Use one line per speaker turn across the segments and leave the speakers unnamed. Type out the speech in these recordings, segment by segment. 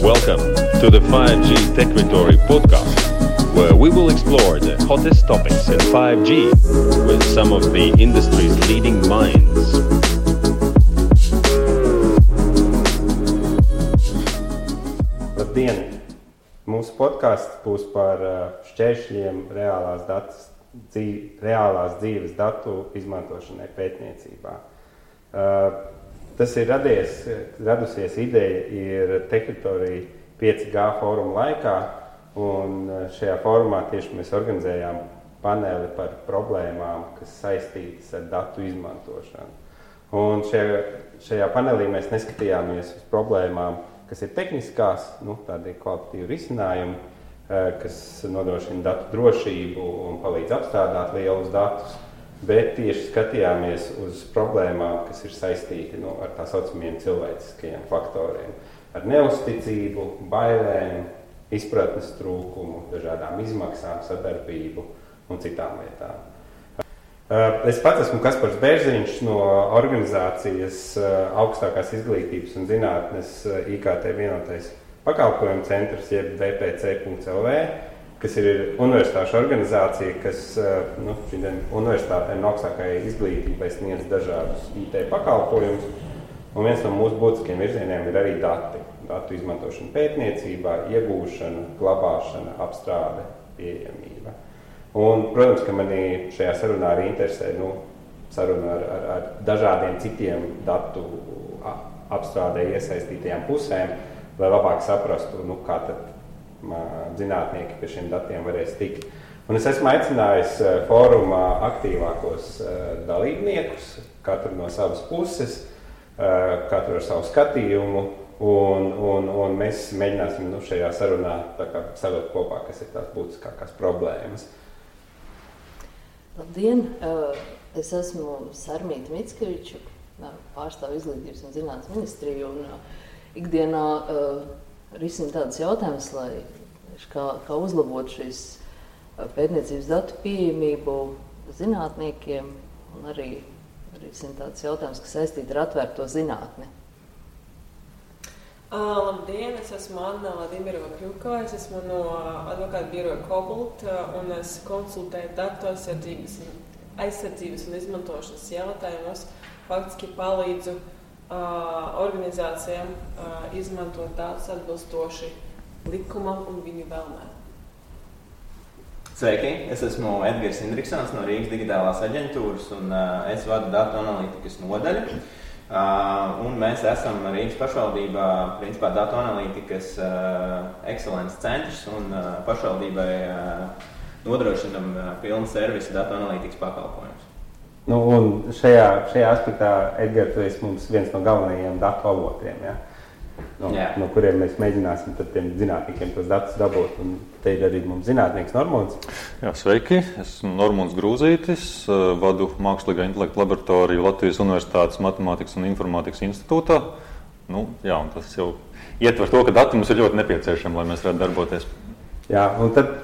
Welcome to the 5G Techvitory podcast, where we will explore the hottest topics in 5G with some of the industry's leading minds.
Labdien! Mūsu podcasts būs par šķēršļiem reālās dzīves datu izmantošanai pētniecībā. Tas ir radusies ideja ir Techvitory 5G fóruma laikā, un šajā fórumā tieši mēs organizējām paneli par problēmām, kas saistītas ar datu izmantošanu. Un šajā panelī mēs neskatījāmies uz problēmām, kas ir tehniskās, tādi kvalitatīvi risinājumi, kas nodrošina datu drošību un palīdz apstrādāt lielus datus, bet tieši skatījāmies uz problēmām, kas ir saistīti ar tā saucamiem cilvēciskajiem faktoriem, ar neuzticību, bailēm, izpratnes trūkumu, dažādām izmaksām, sadarbību un citām lietām. Es pats esmu Kaspars Bērziņš no organizācijas Augstākās izglītības un zinātnes IKT vienotais pakalpojumu centrs, jeb vpc.lv, kas ir universitāšu organizācija, kas universitātēm un augstākajai izglītībai sniedz dažādus IT pakalpojumus. Un viens no mūsu būtiskiem virzieniem ir arī dati. Datu izmantošana pētniecībā, iegūšana, glabāšana, apstrāde, pieejamība. Un, protams, ka mani šajā sarunā arī interesē saruna ar dažādiem citiem datu apstrādē iesaistītajām pusēm, lai labāk saprastu, kā tad zinātnieki pie šiem datiem varēs tikt. Un es esmu aicinājis fórumā aktīvākos dalībniekus, katru no savas puses, katru ar savu skatījumu, un mēs mēģināsim šajā sarunā savilkt kopā, kas ir tās būtiskākās problēmas.
Labdien! Es esmu Sarmīta Mickeviča, pārstāvu izglītības un zinātnes ministriju, un ikdienā risinu tādus jautājumus, kā uzlabot šīs pētniecības datu pieejamību zinātniekiem, un arī risinu tādus jautājumus, kas saistīti ar atvērto zinātni.
Labdien, es esmu Anna Vladimirova Kļukova, es esmu no advokāta biroja Cobalt, un es konsultēju datu aizsardzības un izmantošanas jautājumus, faktiski palīdzu organizācijām izmantot datus atbilstoši likumam un viņu vēlmēm.
Sveiki, es esmu Edgars Indriksons no Rīgas digitālās aģentūras, un es vadu datu analītikas nodaļu. Un mēs esam Rīgas pašvaldībā, principā, datu analītikas ekscelences centrs, un pašvaldībai nodrošinam pilnu servisu datu analītikas pakalpojumus.
Un šajā aspektā, Edgar, tu esi mums viens no galvenajiem datu avotiem, ja? No kuriem mēs mēģināsim tad tiem zinātniekiem tos datus dabūt. Un te ir arī mums zinātnieks Normons.
Jā, sveiki, esmu Normons Grūzītis, vadu Mākslīgā intelekta laboratoriju Latvijas Universitātes Matemātikas un Informātikas institūtā. Un tas jau ietver to, ka dati mums ir ļoti nepieciešami, lai mēs varētu darboties.
Jā, un tad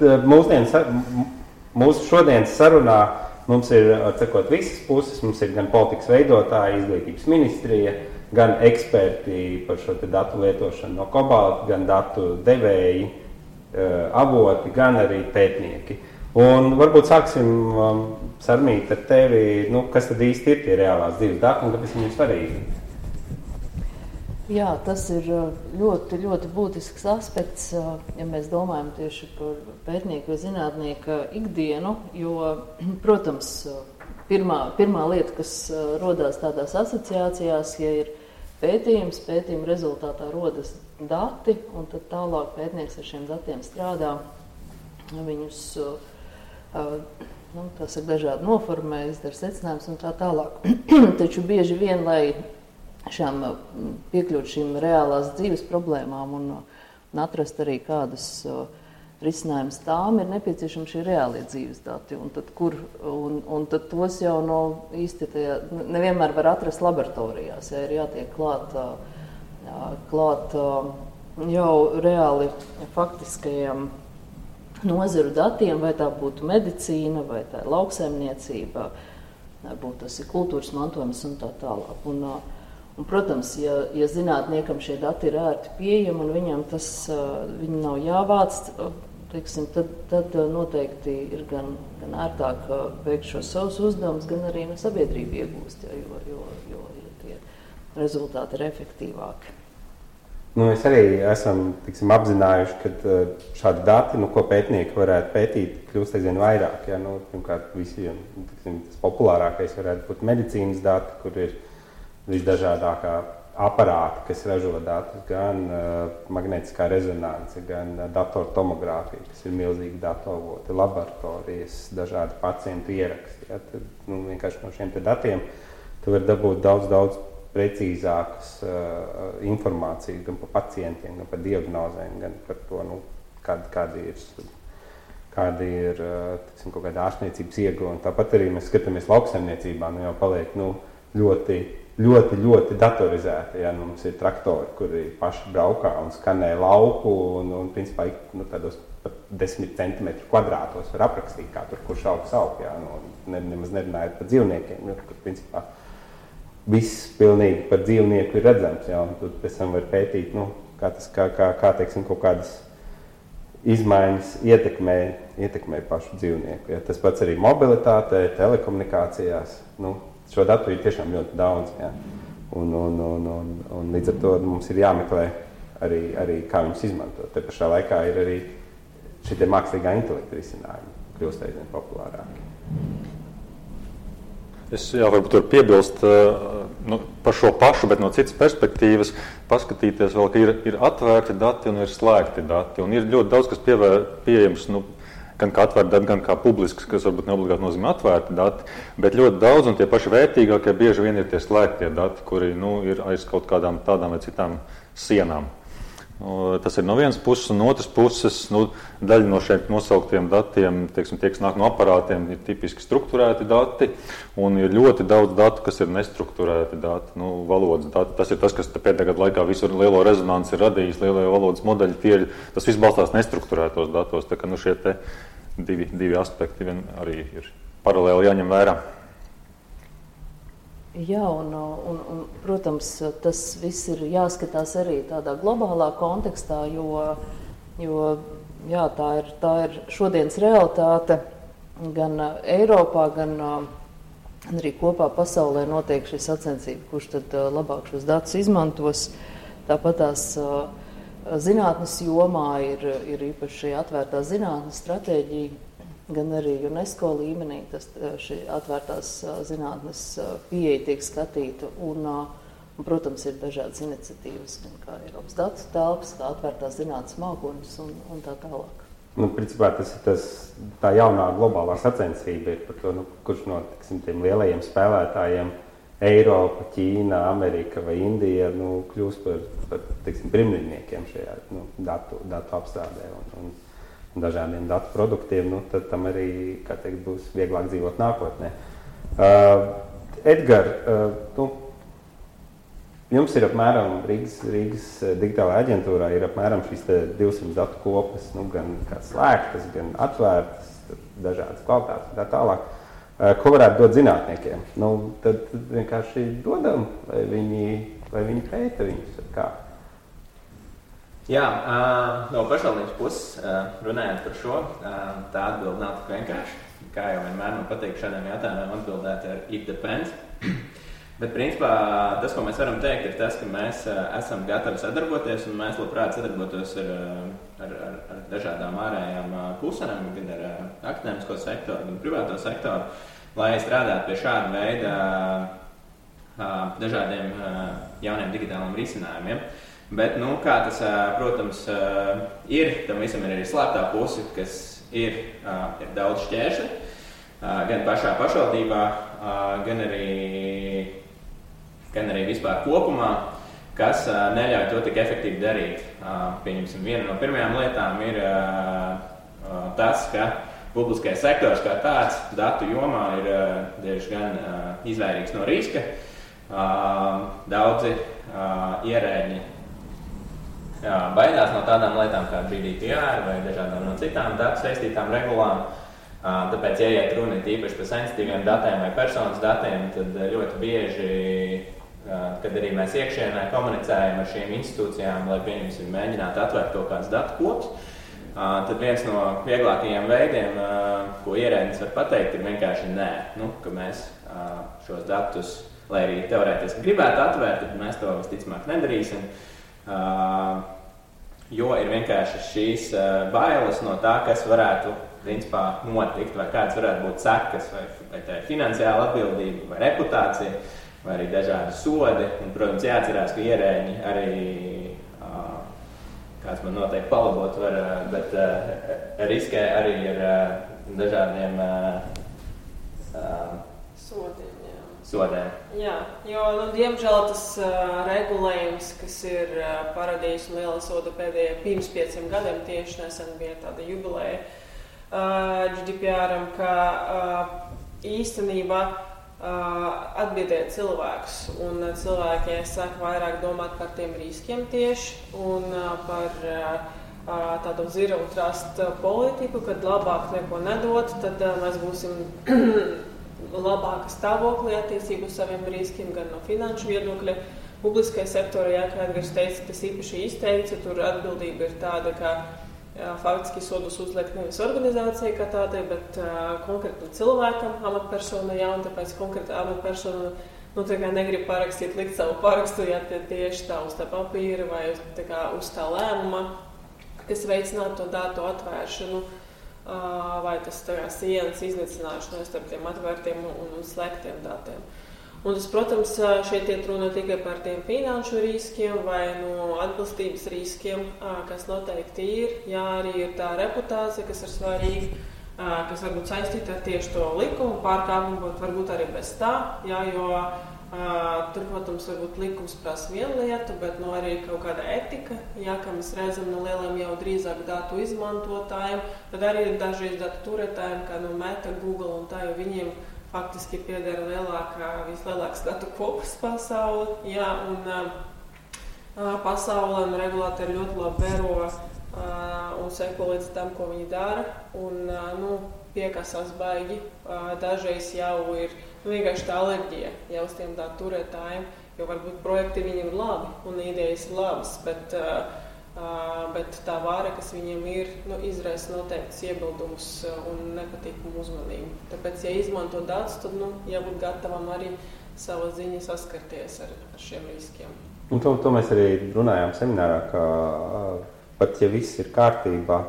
mūsu šodienas sarunā mums ir, visas puses, mums ir gan politikas veidotāji, izglītības ministrija, gan eksperti par šo datu lietošanu no Cobalt, gan datu devēji, avoti, gan arī pētnieki. Un varbūt sāksim, Sarmīt, ar tevi, kas tad īsti ir tie reālās dzīves dati un kāpēc viņi ir svarīgi?
Jā, tas ir ļoti, ļoti būtisks aspekts, ja mēs domājam tieši par pētnieku vai zinātnieku ikdienu, jo, protams, pirmā lieta, kas rodās tādās asociācijās, ja ir pētījuma rezultātā rodas dati, un tad tālāk pētnieks ar šiem datiem strādā, viņus dažādi noformē, izdara secinājumus un tā tālāk. Taču bieži vien, lai piekļūt šīm reālās dzīves problēmām un atrast arī kādas risinājums tām, ir nepieciešami šie reālie dzīves dati. Un tad tos jau īsti nevienmēr var atrast laboratorijās. Ir jātiek klāt jau reāli faktiskajiem nozaru datiem, vai tā būtu medicīna, vai tā ir lauksaimniecība, varbūt tas ir kultūras mantojums un tā tālāk. Un, protams, ja zinātniekam šie dati ir ērti pieejami un viņam viņi nav jāvāc, teiksim, tad noteikti ir gan ērtāk veikt šos savus uzdevumus, gan arī sabiedrība iegūst, jo tie rezultāti ir efektīvāki.
Mēs arī esam apzinājuši, ka šādi dati, ko pētnieki varētu pētīt, kļūst aizvien vairāk. Ja? Pirmkārt, visiem tas populārākais varētu būt medicīnas dati, kur ir visdažādākā aparāti, kas ražo datus, gan magnētiskā rezonance, gan datortomogrāfija, kas ir milzīgi datoravoti, laboratorijas, dažādi pacientu ieraksti. Ja? Tad, vienkārši no šiem datiem tu vari dabūt daudz precīzākas informācijas gan par pacientiem, gan par diagnozēm, gan par to, kādi ir tiksim, kaut kāda ārstniecības ieguvumi. Tāpat arī mēs skatāmies lauksaimniecībā, jau paliek ļoti datorizēti. Ja? Mums ir traktori, kuri paši braukā un skanē lauku un principā tādos pat 10 centimetru kvadrātos var aprakstīt, kā tur kurš aug. Ja? Nemaz nerunājot par dzīvniekiem, kur principā viss pilnīgi par dzīvnieku ir redzams. Ja? Un tad pēc tam var pētīt, kā teiksim, kaut kādas izmaiņas ietekmē pašu dzīvnieku. Ja? Tas pats arī mobilitātē, telekomunikācijās. Šo datu ir tiešām ļoti daudz. Ja? Un līdz ar to mums ir jāmeklē arī kā viņus izmantot. Te pašā laikā ir arī šitie mākslīgā intelekta risinājumi, kļūst aizvien populārāki.
Es varbūt varu piebilst par šo pašu, bet no citas perspektīvas paskatīties vēl, ka ir atvērti dati un ir slēgti dati. Un ir ļoti daudz, kas pieejams, gan kā atvērti dati, gan kā publisks, kas varbūt neobligāti nozīmē atvērti dati, bet ļoti daudz un tie paši vērtīgākie bieži vien ir tie slēgtie dati, kuri ir aiz kaut kādām tādām vai citām sienām. Tas ir no vienas puses, un no otras puses daļa no šiem nosauktiem datiem, teiksim, tie, kas nāk no aparātiem, ir tipiski strukturēti dati, un ir ļoti daudz datu, kas ir nestrukturēti dati, valodas dati. Tas ir tas, kas pēdējā gada laikā visu lielo rezonanci ir radījis, lielie valodas modeļi, tas viss balstās nestrukturētos datos, tā ka šie te divi aspekti arī ir paralēli jāņem vērā.
Jā, un, protams, tas viss ir jāskatās arī tādā globālā kontekstā, jo tā ir šodienas realitāte gan Eiropā, gan arī kopā pasaulē notiek šī sacensība, kurš tad labāk šos datus izmantos. Tāpat tās zinātnes jomā ir īpaši atvērtā zinātnes stratēģija, gan arī UNESCO līmenī šī atvērtās zinātnes pieeja tiek skatīta. Un, protams, ir dažādas iniciatīvas, gan kā Eiropas datu telpas, kā atvērtās zinātnes mākoņus un tā tālāk.
Principā tas ir tā jaunā globālā sacensība ir par to, kurš no tiem lielajiem spēlētājiem Eiropa, Ķīna, Amerika vai Indija kļūst par pirmniekiem šajā datu apstrādē un dažādiem datu produktiem, tad tam arī, kā teikt, būs vieglāk dzīvot nākotnē. Edgar, jums ir apmēram Rīgas digitālajā aģentūrā ir apmēram šīs 200 datu kopas, gan slēgtas, gan atvērtas, dažādas kvalitātes un tā tālāk. Ko varētu dot zinātniekiem? Tad vienkārši dodam, vai viņi pēta viņus ar kā?
Jā, no pašvaldības puses runājot par šo, tā atbilde nav tik vienkārši. Kā jau vienmēr man patīk šādiem jautājumiem atbildēt ar it depends. Bet principā tas, ko mēs varam teikt, ir tas, ka mēs esam gatavi sadarboties un mēs labprāt sadarbotos ar dažādām ārējām pusēm, gan ar akadēmisko sektoru, gan privāto sektoru, lai strādātu pie šāda veida dažādiem jauniem digitāliem risinājumiem. Bet, kā tas, protams, ir, tam visam ir arī slēptā puse, kas ir daudz šķēršļi, gan pašā pašvaldībā, gan arī vispār kopumā, kas neļauj to tik efektīvi darīt. Pieņemsim, viena no pirmajām lietām ir tas, ka publiskais sektors kā tāds datu jomā ir diezgan izvairīgs no riska. Daudzi ierēģi baidās no tādām lietām kā GDPR vai dažādām no citām datu saistītām regulām. Tāpēc, ja iet runa īpaši par sensitīviem datiem vai personas datiem, tad ļoti bieži kad arī mēs iekšienē komunicējam ar šīm institūcijām, lai pieņemsim mēģinātu atvērt kaut kāds datu kops, tad viens no vieglākajiem veidiem, ko ierēdnis var pateikt, ir vienkārši nē, ka mēs šos datus, lai arī teorētiski gribētu atvērt, tad mēs to visticamāk nedarīsim, jo ir vienkārši šīs bailes no tā, kas varētu principā notikt, vai kāds varētu būt sekas, vai tā ir finansiāla atbildība, vai reputācija, vai arī dažādi sodi. Un, protams, jāatcerās, ka ierēģi arī, kāds man noteikti palabot var, bet riskē arī ar dažādiem sodiem.
Jā, jo, diemžēl tas regulējums, kas ir paradījis un liela soda pēdējie pirms 5 gadiem, tieši nesen bija tāda jubileja GDPR-am, ka īstenībā atbiedē cilvēkus, un cilvēki sāk vairāk domāt par tiem riskiem tieši un par tādu zero trust politiku, kad labāk neko nedot, tad mēs būsim labāka stāvoklī attiecību uz saviem riskiem, gan no finanšu viedokļa. Publiskajā sektorā, kā Edgars teica, tas īpaši izteikts, tur atbildība ir tāda, ka faktiski sodus uzliek nevis organizācija kā tādai, bet konkrētam cilvēkam, amatpersonai, un tāpēc konkrēta amatpersona negrib parakstīt, likt savu parakstu, ja tieši tā uz tā papīra vai uz tā lēmuma, kas veicinātu to datu atvēršanu, vai tas sienas iznīcināšanu starp tiem atvērtiem un slēgtiem datiem. Un tas, protams, šeit iet runa tikai par tiem finanšu riskiem vai atbilstības riskiem, kas noteikti ir. Jā, arī ir tā reputācija, kas ir svarīga, kas varbūt saistīta ar tieši to likumu pārkāpumu, bet varbūt arī bez tā, jā, jo tur, protams, varbūt likums prasa vienu lietu, bet arī kaut kāda etika, jā, kā mēs redzam no lieliem jau drīzāk datu izmantotājiem, tad arī dažreiz datu turētājiem, kā Meta, Google un tā, jo viņiem faktiski pieder vislielāks datu kopas pasauli, jā, un pasaulē un regulātori ļoti labi vēro un seko līdz tam, ko viņi dara, un piekasās baigi. Dažreiz jau ir vienkārši tā alerģija jau uz tiem datu turētājiem, jo varbūt projekti viņiem ir labi un idejas ir labas, bet tā vāra, kas viņiem ir, izraisa noteikts iebildumus un nepatīkumu uzmanību. Tāpēc, ja izmanto datus, tad jābūt gatavam arī savā ziņā saskarties ar šiem riskiem.
Un to mēs arī runājām seminārā, ka pat ja viss ir kārtībā,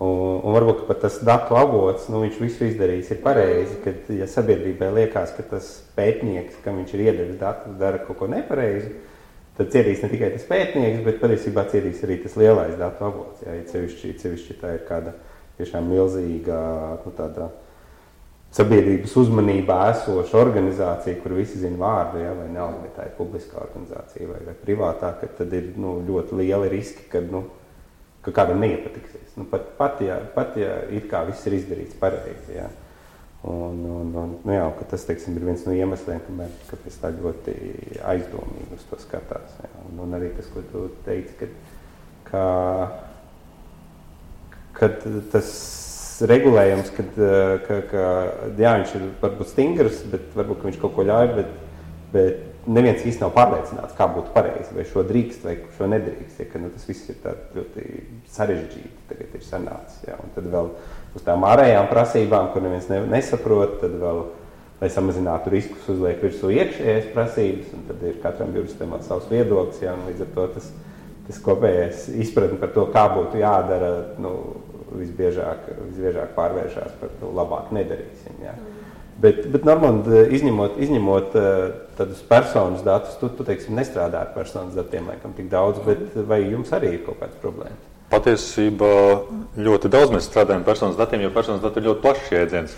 un varbūt pat tas datu avots, viņš visu izdarījis ir pareizi, kad ja sabiedrībai liekas, ka tas pētnieks, kam viņš ir iedevis datus, dara kaut ko nepareizi, tad cietīs ne tikai tas pētnieks, bet patiesībā cietīs arī tas lielais datu avots. Ja cevišķi tā ir kāda tiešām milzīga tāda sabiedrības uzmanībā esoša organizācija, kur visi zina vārdu, ja, vai nav, vai tā ir publiskā organizācija vai privātā, ka tad ir ļoti lieli riski, ka kādam neiepatiksies. Pat ja it kā viss ir izdarīts pareizi. Ja. Jā, ka tas, teiksim, ir viens no iemesliem, kāpēc tā ļoti aizdomīgi uz to skatās. Jā. Un arī tas, ko tu teici, ka tas regulējums, jā, viņš ir varbūt stingrs, bet varbūt viņš kaut ko ļauj, bet neviens īsti nav pārliecināts, kā būtu pareizi, vai šo drīkst, vai šo nedrīkst. Ja, ka, tas viss ir tā ļoti sarežģīti, tagad ir sanācis. Jā. Un tad vēl uz tām ārējām prasībām, kur neviens nesaprot, tad vēl, lai samazinātu riskus, uzliek virsū iekšējās prasības, un tad ir katram juristam savs viedoklis, jā, un līdz ar to tas kopējais izpratni par to, kā būtu jādara, visbiežāk pārvēršās par to labāk nedarīsim. Jā. Bet Normand, izņemot tādus personas datus, tu teiksim, nestrādā ar personas datiem, laikam tik daudz, bet vai jums arī ir kaut kāds problēmas?
Patiesībā ļoti daudz mēs strādājam personas datiem, jo personas dati ir ļoti plašs jēdziens.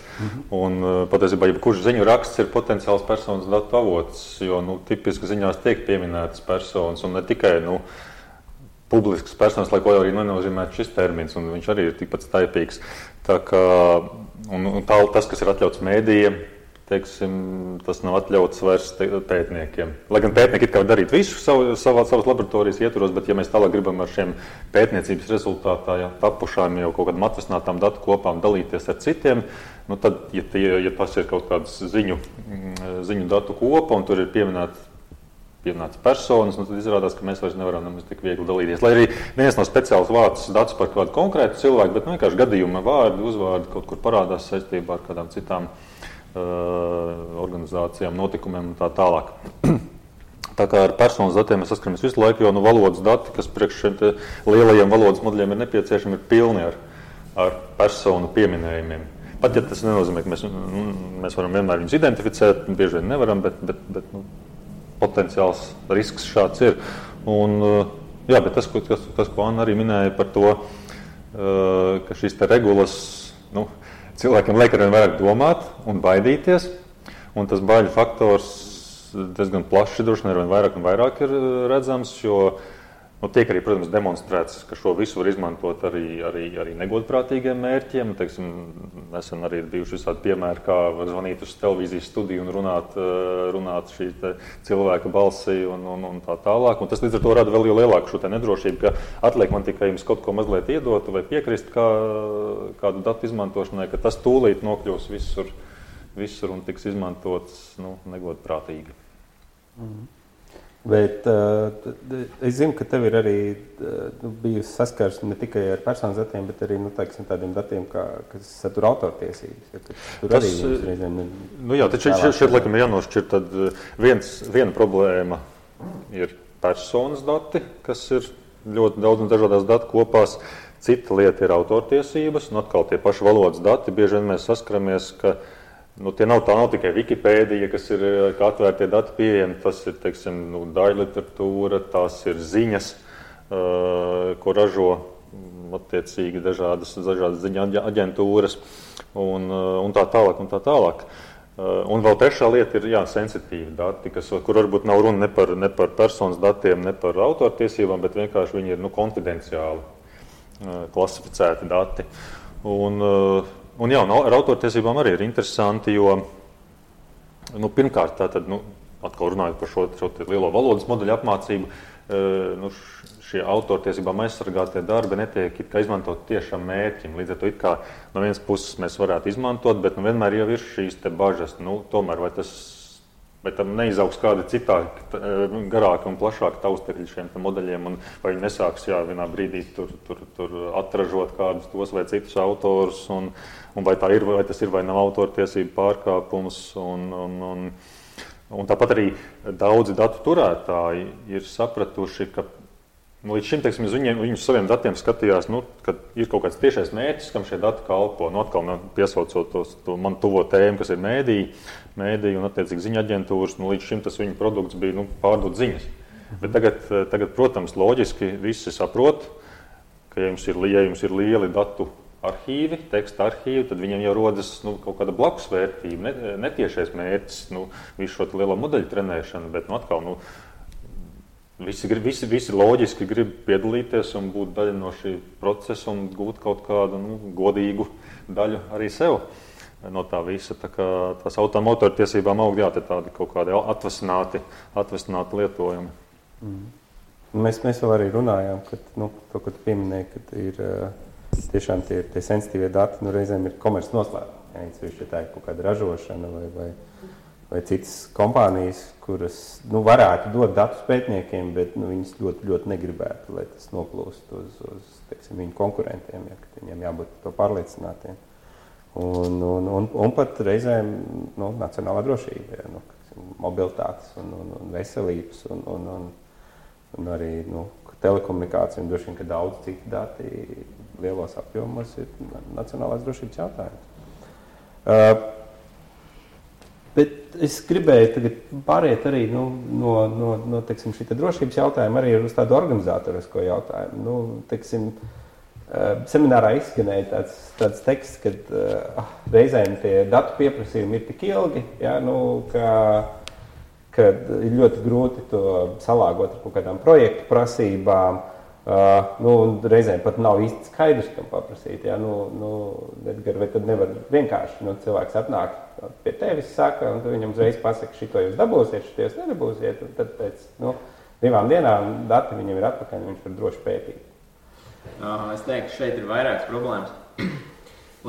Un patiesībā jebkurš ziņu raksts ir potenciāls personas datu avots, jo tipiski ziņās tiek pieminētas personas un ne tikai publiskas personas, lai ko jau arī nenozīmētu šis termins, un viņš arī ir tikpat staipīgs. Tā kā, tas, kas ir atļauts mēdījiem, teiksim, tas nav atļauts vairs pētniekiem. Lai gan pētnieki it kā darīt visu savas laboratorijas ietvaros, bet ja mēs tālāk gribam ar šiem pētniecības rezultātā tapušām jau kaut kādām atvesinātām datu kopām dalīties ar citiem, tad, ja tas ir kaut kāds ziņu datu kopa un tur ir pieminēts pieminētas personas, tad izrādās, ka mēs vairs nevaram nemaz tik viegli dalīties. Lai arī viens nav speciāls vārds datus par kādu konkrētu cilvēku, bet vienkārši gadījuma vārdi, uzvārdi kaut kur parādās saistībā ar kādām citām organizācijām, notikumiem un tā tālāk. Tā kā ar personas datiem mēs saskaramies visu laiku, jo valodas dati, kas priekš šiem lielajiem valodas modeļiem ir nepieciešami, ir pilni ar personu pieminējumiem. Pat ja tas nenozīmē, ka mēs varam vienmēr viņus identificēt, bieži vien nevaram, bet potenciāls risks šāds ir. Un, jā, bet tas, ko Anna arī minēja par to, ka šīs te regulas cilvēkiem liek arvien vairāk domāt un baidīties, un tas baiļu faktors diezgan plaši droši vien arvien vairāk un vairāk ir redzams, jo tiek arī, protams, demonstrēts, ka šo visu var izmantot arī negodprātīgiem mērķiem. Teiksim, nesen arī ir bijuši visādi piemēri, kā var zvanīt uz televīzijas studiju un runāt šī cilvēka balsī un tā tālāk. Un tas līdz ar to rada vēl lielāku šo nedrošību, ka atliek man tikai jums kaut ko mazliet iedot vai piekrist kādu datu izmantošanai, ka tas tūlīt nokļūs visur un tiks izmantots negodprātīgi.
Bet es zinu, ka tev ir arī bijusi saskars ne tikai ar personas datiem, bet arī tādiem datiem, kas satur autortiesības. Ja, tur arī reizēm ir...
Taču šeit laikam ir jānošķir, tad viena problēma ir personas dati, kas ir ļoti daudz un dažādās datu kopās. Cita lieta ir autortiesības, un atkal tie paši valodas dati. Bieži vien mēs saskaramies, ka tā nav tikai Wikipēdija, kas ir kā atvērtie dati pieejami, tas ir, teiksim, daļliteratūra, tās ir ziņas, ko ražo attiecīgi dažādas ziņa aģentūras un tā tālāk. Un vēl trešā lieta ir sensitīvi dati, kur varbūt nav runa ne par personas datiem, ne par autortiesībām, bet vienkārši viņi ir konfidenciāli klasificēti dati. Un ar autortiesībām arī ir interesanti, jo pirmkārt, tātad, atkal runājot par šo lielo valodas modeļu apmācību, šie autortiesībām aizsargātie darbi netiek izmantot tiešām mērķim. Līdz ar to it kā no vienas puses mēs varētu izmantot, bet vienmēr jau ir šīs te bažas. Tomēr vai tam neizaugs kādi citādi garāki un plašāki taustekļi šiem modeļiem, un vai viņi nesāks vienā brīdī tur atražot kādus tos vai citus autorus, un vai tas ir vai nav autortiesību pārkāpums. Un tāpat arī daudzi datu turētāji ir sapratuši, ka līdz šim, teiksim, viņi uz saviem datiem skatījās, ka ir kaut kāds tiešais mērķis, kam šie dati kalpo. Atkal piesaucot to man tuvo tēmu, kas ir mēdī un attiecīgi ziņa aģentūras, līdz šim tas viņu produkts bija pārdot ziņas. Bet tagad, protams, loģiski visi saprot, ka ja jums ir lieli datu arhīvi, teksta arhīvi, tad viņiem jau rodas kaut kāda blakus vērtība, netiešais mērķis, visu šo lielo modeļu trenēšanu, bet atkal, visi loģiski grib piedalīties un būt daļa no šī procesa un gūt kaut kādu godīgu daļu arī sev no tā visa. Tā kā tās autortiesībām aug, tādi kaut kādi atvasināti lietojumi.
Mēs vēl arī runājām, ka to, ko tu pieminēji, ka ir tiešām tie sensitīvie dati, reizēm ir komerces noslēpumi. Ja tā ir kaut kāda ražošana vai citas kompānijas, kuras varētu dot datus pētniekiem, bet viņas ļoti, ļoti negribētu, lai tas noplūst uz teiksim, viņu konkurentiem, ka viņiem jābūt to pārliecinātiem. Un pat reizēm nacionālā drošība, mobilitātes un veselības un arī telekomunikācija un droši vien, ka daudz citu dati lielos apjomos ir nacionālās drošības jautājums. Bet es gribēju tagad pāriet arī no teiksim, šī drošības jautājuma arī uz tādu organizatorisko jautājumu. Teiksim, seminārā izskanēja tāds teksts, ka reizēm tie datu pieprasījumi ir tik ilgi, ka ir ļoti grūti to salāgot ar kaut kādām projektu prasībām. Reizēm pat nav īsti skaidrs, kam paprasīt. Edgar, vai tad nevar vienkārši cilvēks atnāk pie tevis, saka, un tu viņam uzreiz pasaka, šito jūs dabūsiet, šito jūs nedabūsiet, un tad pēc 2 dienām dati viņam ir atpakaļ, un viņš var droši pētīt.
Es teiktu, šeit ir vairākas problēmas.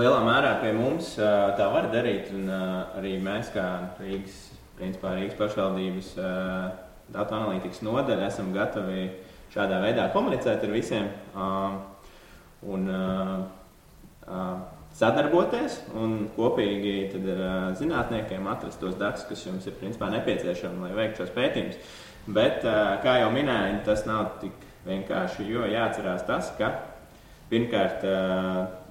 Lielā mērā pie mums tā var darīt, un arī mēs kā Rīgas pašvaldības datu analītikas nodaļa esam gatavi šādā veidā komunicēt ar visiem un sadarboties un kopīgi tad ar zinātniekiem atrast tos datus, kas jums ir principā nepieciešami, lai veiktu šos pētījumus. Bet, kā jau minēju, tas nav tik vienkārši, jo jāatcerās tas, ka pirmkārt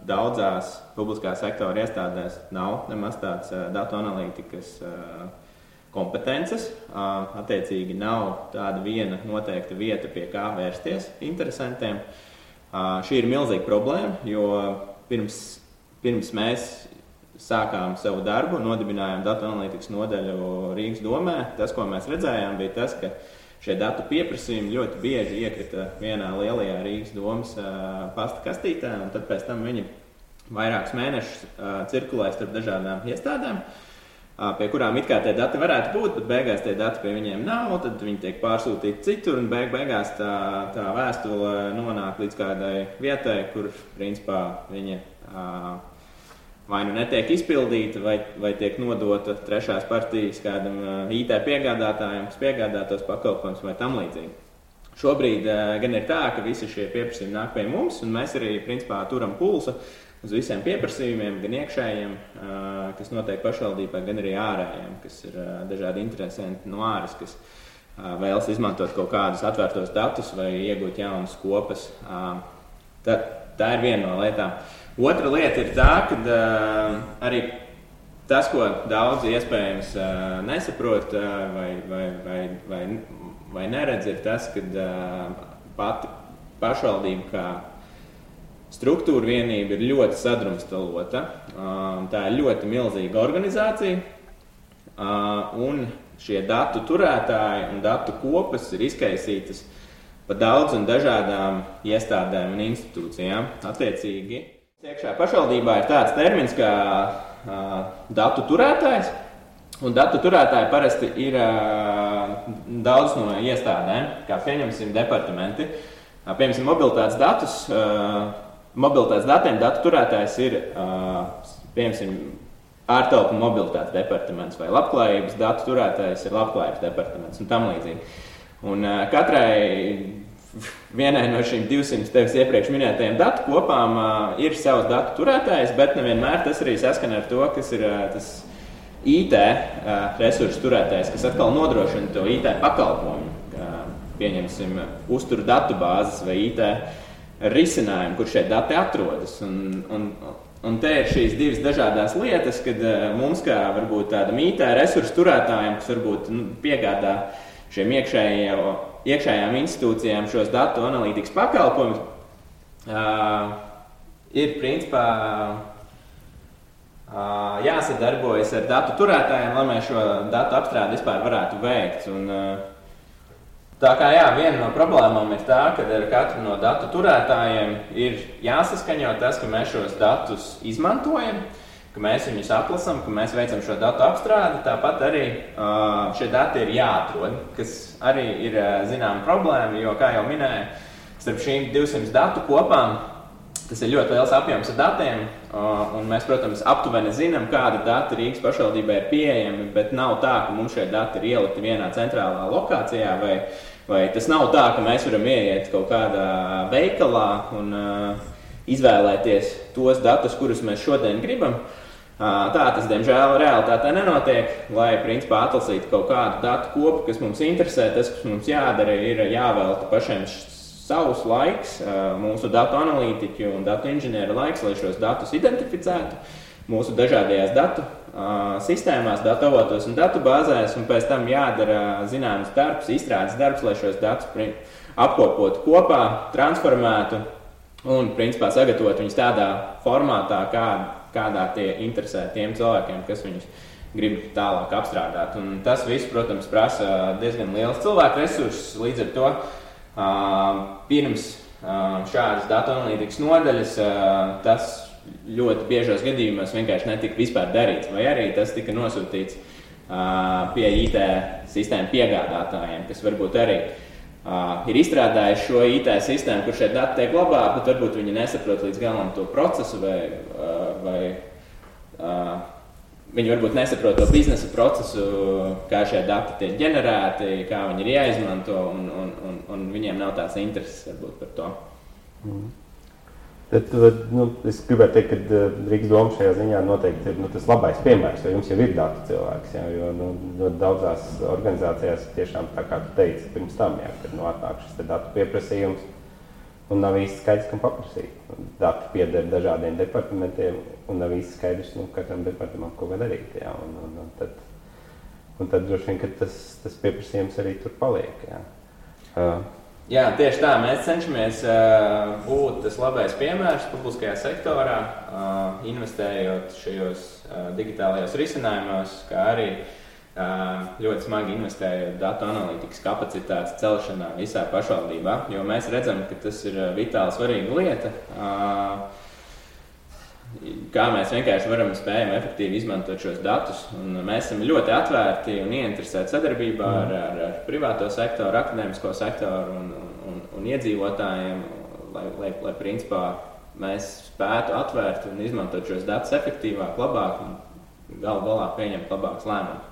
daudzās publiskā sektora iestādēs nav nemaz tāds datu analītikas kompetences. Attiecīgi nav tāda viena noteikta vieta, pie kā vērsties interesantiem. Šī ir milzīga problēma, jo pirms mēs sākām savu darbu, nodibinājām datu analītikas nodaļu Rīgas domē, tas, ko mēs redzējām, bija tas, ka šie datu pieprasījumi ļoti bieži iekrita vienā lielajā Rīgas domas pasta kastītē, un tad pēc tam viņi vairākus mēnešus cirkulē starp dažādām iestādēm, pie kurām it kā tie dati varētu būt, bet beigās tie dati pie viņiem nav, tad viņi tiek pārsūtīti citur, un beigās tā vēstule nonāk līdz kādai vietai, kur principā viņa vai nu netiek izpildīta, vai tiek nodota trešās partijas kādam IT piegādātājiem, kas piegādā tos pakalpojumus vai tam līdzīgi. Šobrīd gan ir tā, ka visi šie pieprasījumi nāk pie mums, un mēs arī principā turam pulsu uz visiem pieprasījumiem, gan iekšējiem, kas notiek pašvaldībā, gan arī ārējiem, kas ir dažādi interesanti no āras, kas vēlas izmantot kaut kādus atvērtos datus vai iegūt jaunas kopas. Tā ir viena no lietām. Otra lieta ir tā, ka arī tas, ko daudzi iespējams nesaprot vai neredz, ir tas, ka pati pašvaldība kā struktūra vienība ir ļoti sadrumstalota. Tā ir ļoti milzīga organizācija, un šie datu turētāji un datu kopas ir izkaisītas pa daudz un dažādām iestādēm un institūcijām. Attiecīgi, iekšā pašvaldībā ir tāds termins kā datu turētājs, un datu turētāji parasti ir daudz no iestādēm, kā pieņemsim departamenti. Pieņemsim mobilitātes datiem datu turētājs ir, pieņemsim, ārtelpu mobilitātes departaments vai labklājības datu turētājs ir labklājības departaments un tam līdzīgi. Un vienai no šīm 200 tevis iepriekš minētajiem datu kopām ir savs datu turētājs, bet nevienmēr tas arī saskana ar to, kas ir tas IT resursu turētājs, kas atkal nodrošina to IT pakalpojumu. Pieņemsim, uztur datubāzes vai IT risinājumu, kur šie dati atrodas. Un te ir šīs divas dažādās lietas, kad mums kā varbūt tādam IT resursu turētājiem, kas varbūt piegādā šiem iekšējām institūcijām šos datu analītikas pakalpojumus, ir principā jāsadarbojas ar datu turētājiem, lai mēs šo datu apstrādi vispār varētu veikt. Un, tā kā viena no problēmām ir tā, ka ar katru no datu turētājiem ir jāsaskaņo tas, ka mēs šos datus izmantojam, ka mēs viņus atlasam, ka mēs veicam šo datu apstrādi, tāpat arī šie dati ir jāatrod, kas arī ir zināma problēma, jo, kā jau minēju, starp šīm 200 datu kopām, tas ir ļoti liels apjoms ar datiem, un mēs, protams, aptuveni zinām, kādi dati Rīgas pašvaldībā ir pieejami, bet nav tā, ka mums šie dati ir ielikti vienā centrālā lokācijā, vai tas nav tā, ka mēs varam ieiet kaut kādā veikalā un izvēlēties tos datus, kurus mēs šodien gribam. Tā tas, diemžēl, realitātē nenotiek, lai, principā, atlasītu kaut kādu datu kopu, kas mums interesē. Tas, kas mums jādara, ir jāvelta pašiem savus laiks, mūsu datu analītiķu un datu inženieru laiks, lai šos datus identificētu mūsu dažādajās datu sistēmās, datu avotos un datu bāzēs, un pēc tam jādara zināms darbs, izstrādes darbs, lai šos datus apkopotu kopā, transformētu un, principā, sagatavot viņus tādā formātā, kādā tie interesē tiem cilvēkiem, kas viņus grib tālāk apstrādāt. Un tas viss, protams, prasa diezgan liels cilvēku resursus, līdz ar to pirms šādas datu analītikas nodaļas tas ļoti biežos gadījumos vienkārši netika vispār darīts, vai arī tas tika nosūtīts pie IT sistēmu piegādātājiem, kas varbūt arī ir izstrādājuši šo IT sistēmu, kur šie dati tiek glabāti, bet varbūt viņi nesaprot līdz galam to procesu vai viņi varbūt nesaprot to biznesa procesu, kā šie dati tiek ģenerēti, kā viņi ir jāizmanto, un viņiem nav tāds intereses varbūt par to.
Bet, es gribētu teikt, ka Rīgas doma šajā ziņā noteikti ir tas labais piemērs, jo jums jau ir datu cilvēks, jo daudzās organizācijās tiešām tā kā tu teici pirms tam, kad atnāk šis datu pieprasījums un nav īsti skaidrs, kam paprasīt. Dati pieder dažādiem departamentiem un nav īsti skaidrs, katram departamentam ko darīt. Un tad droši vien, ka tas pieprasījums arī tur paliek.
Jā, tieši tā. Mēs cenšamies būt tas labais piemērs publiskajā sektorā, investējot šajos digitālajos risinājumos, kā arī ļoti smagi investējot datu analītikas kapacitātes celšanā visā pašvaldībā, jo mēs redzam, ka tas ir vitāli svarīga lieta. Kā mēs vienkārši varam spējam efektīvi izmantot šos datus. Un mēs esam ļoti atvērti un ieinteresēti sadarbībā ar privāto sektoru, akadēmisko sektoru un iedzīvotājiem, lai principā mēs spētu atvērt un izmantot šos datus efektīvāk, labāk un galu galā pieņemt labākus lēmumus.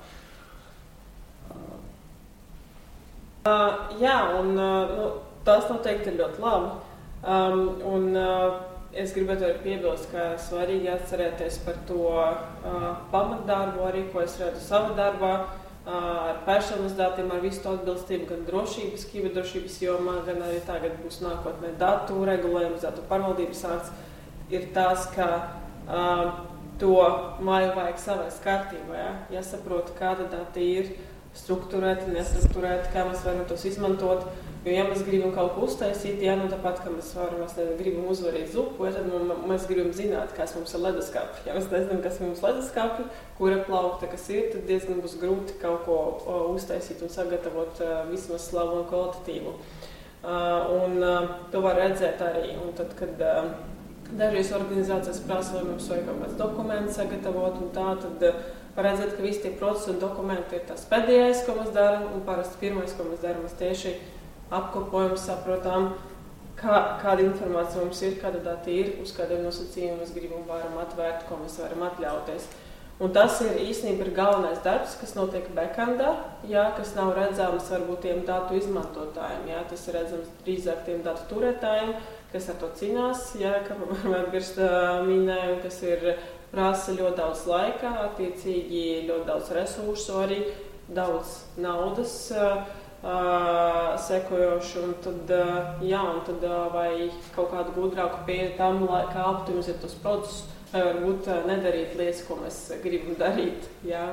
Jā, un tas noteikti ir ļoti labi. Es gribētu arī piebilst, ka svarīgi atcerēties par to pamatdarbu, arī ko es redzu savā darbā, ar personas datiem, ar visu to atbilstību, gan drošības, kiberdrošības jomā, gan arī tagad būs nākotnē datu regulējums, datu pārvaldības akts, ir tas, ka to māju vajag savest kārtībā, jāsaprot, kāda dati ir, strukturēti, nestrukturēti, kā mēs varam tos izmantot. Jo, ja mēs gribam kaut ko uztaisīt, tāpat, ka mēs gribam uzvarīt zupu, tad mēs gribam zināt, kas mums ir leduskapī. Ja mēs nezinām, kas mums ir leduskapī, kura plaukta, kas ir, tad diezgan būs grūti kaut ko uztaisīt un sagatavot vismaz slavu un kvalitatīvu. To var redzēt arī. Un tad, kad dažreiz organizācijas prasa, vai mums vajag kaut kāds dokuments sagatavot un tā, tad var redzēt, ka visi tie procesi un dokumenti ir tas pēdējais, ko mēs darām, un parasti pirmais, ko mēs darām, mēs tieši apkopojam, saprotam, kāda informācija mums ir, kāda dati ir, uz kādiem nosacījumiem mēs gribam varam atvērt, ko mēs varam atļauties. Un tas ir īstenībā galvenais darbs, kas notiek backendā, kas nav redzams varbūt tiem datu izmantotājiem. Tas ir redzams drīzāk tiem datu turētājiem, kas ar to cīnās, kā Birst minēja, kas ir prasa ļoti daudz laika, attiecīgi ļoti daudz resursu, arī daudz naudas sekojošu, un tad vai kaut kādu gudrāku pieeju tam, kā optimizēt tos procesus, vai varbūt nedarīt lietas, ko mēs gribam darīt,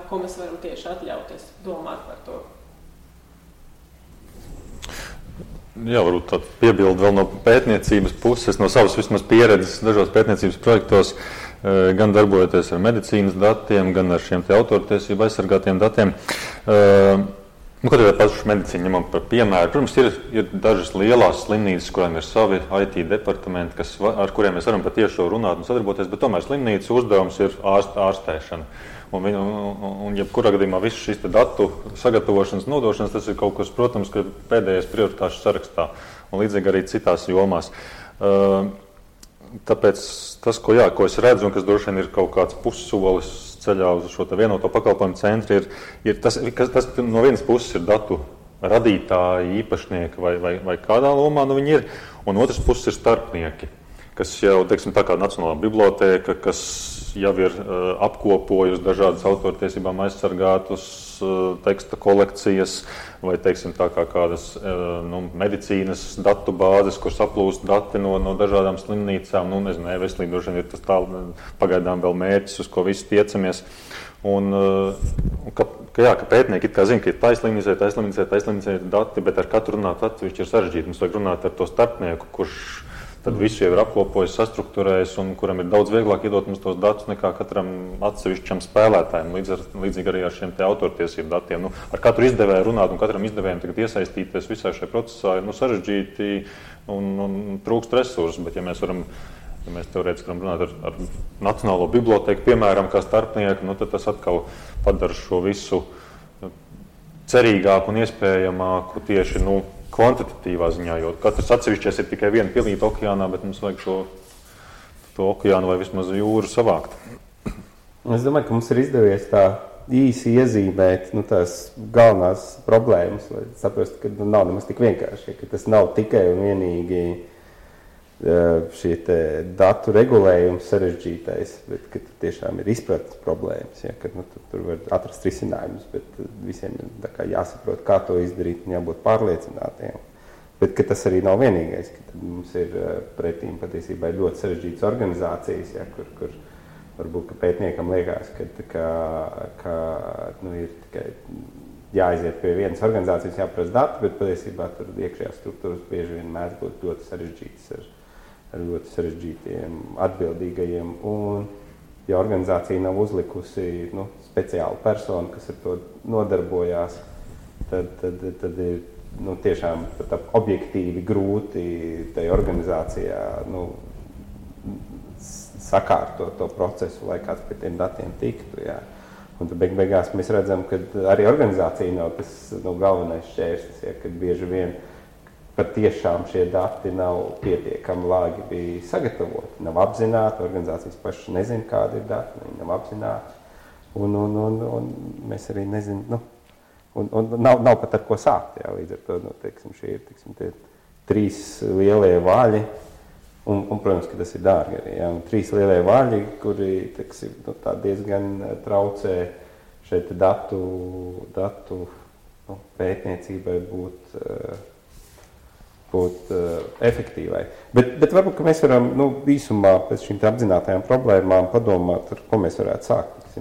ko mēs varam tieši atļauties, domāt par to.
Jā, varbūt tādu piebildu vēl no pētniecības puses, no savas vismaz pieredzes dažos pētniecības projektos, gan darbojoties ar medicīnas datiem, gan ar šiem te autortiesību aizsargātiem datiem. Ko tad pašu medicīnu ņemam par piemēru? Protams, ir dažas lielās slimnīcas, kurām ir savi IT departamenti, ar kuriem mēs varam patiešo runāt un sadarboties, bet tomēr slimnīcas uzdevums ir ārstēšana. Un jebkurā gadījumā visu šīs datu sagatavošanas, nodošanas, tas ir kaut kas, protams, ka pēdējais prioritāšu sarakstā un līdzīgi arī citās jomās. Tāpēc tas, ko es redzu, un kas droši vien ir kaut kāds pussolis ceļā uz šo vienoto pakalpojumu centru, ir tas no vienas puses ir datu radītāji, īpašnieki vai kādā lomā viņi ir, un otras puses ir starpnieki, kas jau, teiksim, tā kā Nacionālā bibliotēka, kas jau ir apkopojusi dažādas autortiesībām aizsargātus teksta kolekcijas, vai, teiksim, tā kā kādas medicīnas datu bāzes, kur saplūst dati no dažādām slimnīcām, veselība droši vien ir tas pagaidām vēl mērķis, uz ko visi tiecamies. Ka pētnieki it kā zina, ka ir taislimnicē dati, bet ar katru runāt atsevišķi ir sarežģīti. Mums vajag runāt ar to starpnieku, kurš tad visu jau ir apkopojis, sastruktūrējis un kuram ir daudz vieglāk iedot mums tos datus nekā katram atsevišķam spēlētājam, līdzīgi arī ar šiem te autortiesību datiem. Ar katru izdevēju runāt un katram izdevējam tagad iesaistīties visā šajā procesā ir sarežģīti un trūkst resursu, bet ja mēs teorētiski varam runāt ar Nacionālo bibliotēku, piemēram, kā starpnieku, tad tas atkal padara šo visu cerīgāku un iespējamāku tieši, kvantitatīvā ziņā, jo katrs atsevišķies ir tikai viena pilīta okeānā, bet mums vajag to okeānu vai vismaz jūru savākt.
Es domāju, ka mums ir izdevies tā īsi iezīmēt tās galvenās problēmas, lai saprastu, ka nav nemaz tik vienkārši, ka tas nav tikai un vienīgi šie datu regulējums sarežģītais, bet ka tiešām ir izpratnes problēmas, ja, ka tur var atrast risinājumus, bet visiem ir jāsaprot, kā to izdarīt un jābūt pārliecinātiem. Bet ka tas arī nav vienīgais, ka mums ir pretīm patiesībā ļoti sarežģītas organizācijas, ja, kur varbūt, ka pētniekam liekas, ka ir tikai jāaiziet pie vienas organizācijas, jāprasa dati, bet patiesībā tur iekšējās struktūras bieži vien mēdz būt ļoti sarežģītas ar ļoti sarežģītiem atbildīgajiem. Un, ja organizācija nav uzlikusi speciālu personu, kas ar to nodarbojās, tad ir tiešām objektīvi grūti tai organizācijā sakārtot to procesu, lai kāds pie tiem datiem tiktu. Jā. Un tad beigās mēs redzam, ka arī organizācija nav tas galvenais šķērslis, ja, kad bieži vien patiešām šie dati nav pietiekami lāgi sagatavoti, nav apzināti, organizācijas pašas nezina, kādi ir dati, viņi nav apzināti, un mēs arī nezinām, un nav pat ar ko sākt, jā, līdz ar to, šie ir, tie 3 lielie vaļi, un, protams, ka tas ir dārgi arī, jā, un 3 lielie vaļi, kuri, tā diezgan traucē šeit datu pētniecībai būt efektīvai. Bet varbūt, ka mēs varam īsumā pēc šīm apzinātajām problēmām padomāt, ar ko mēs varētu sākt.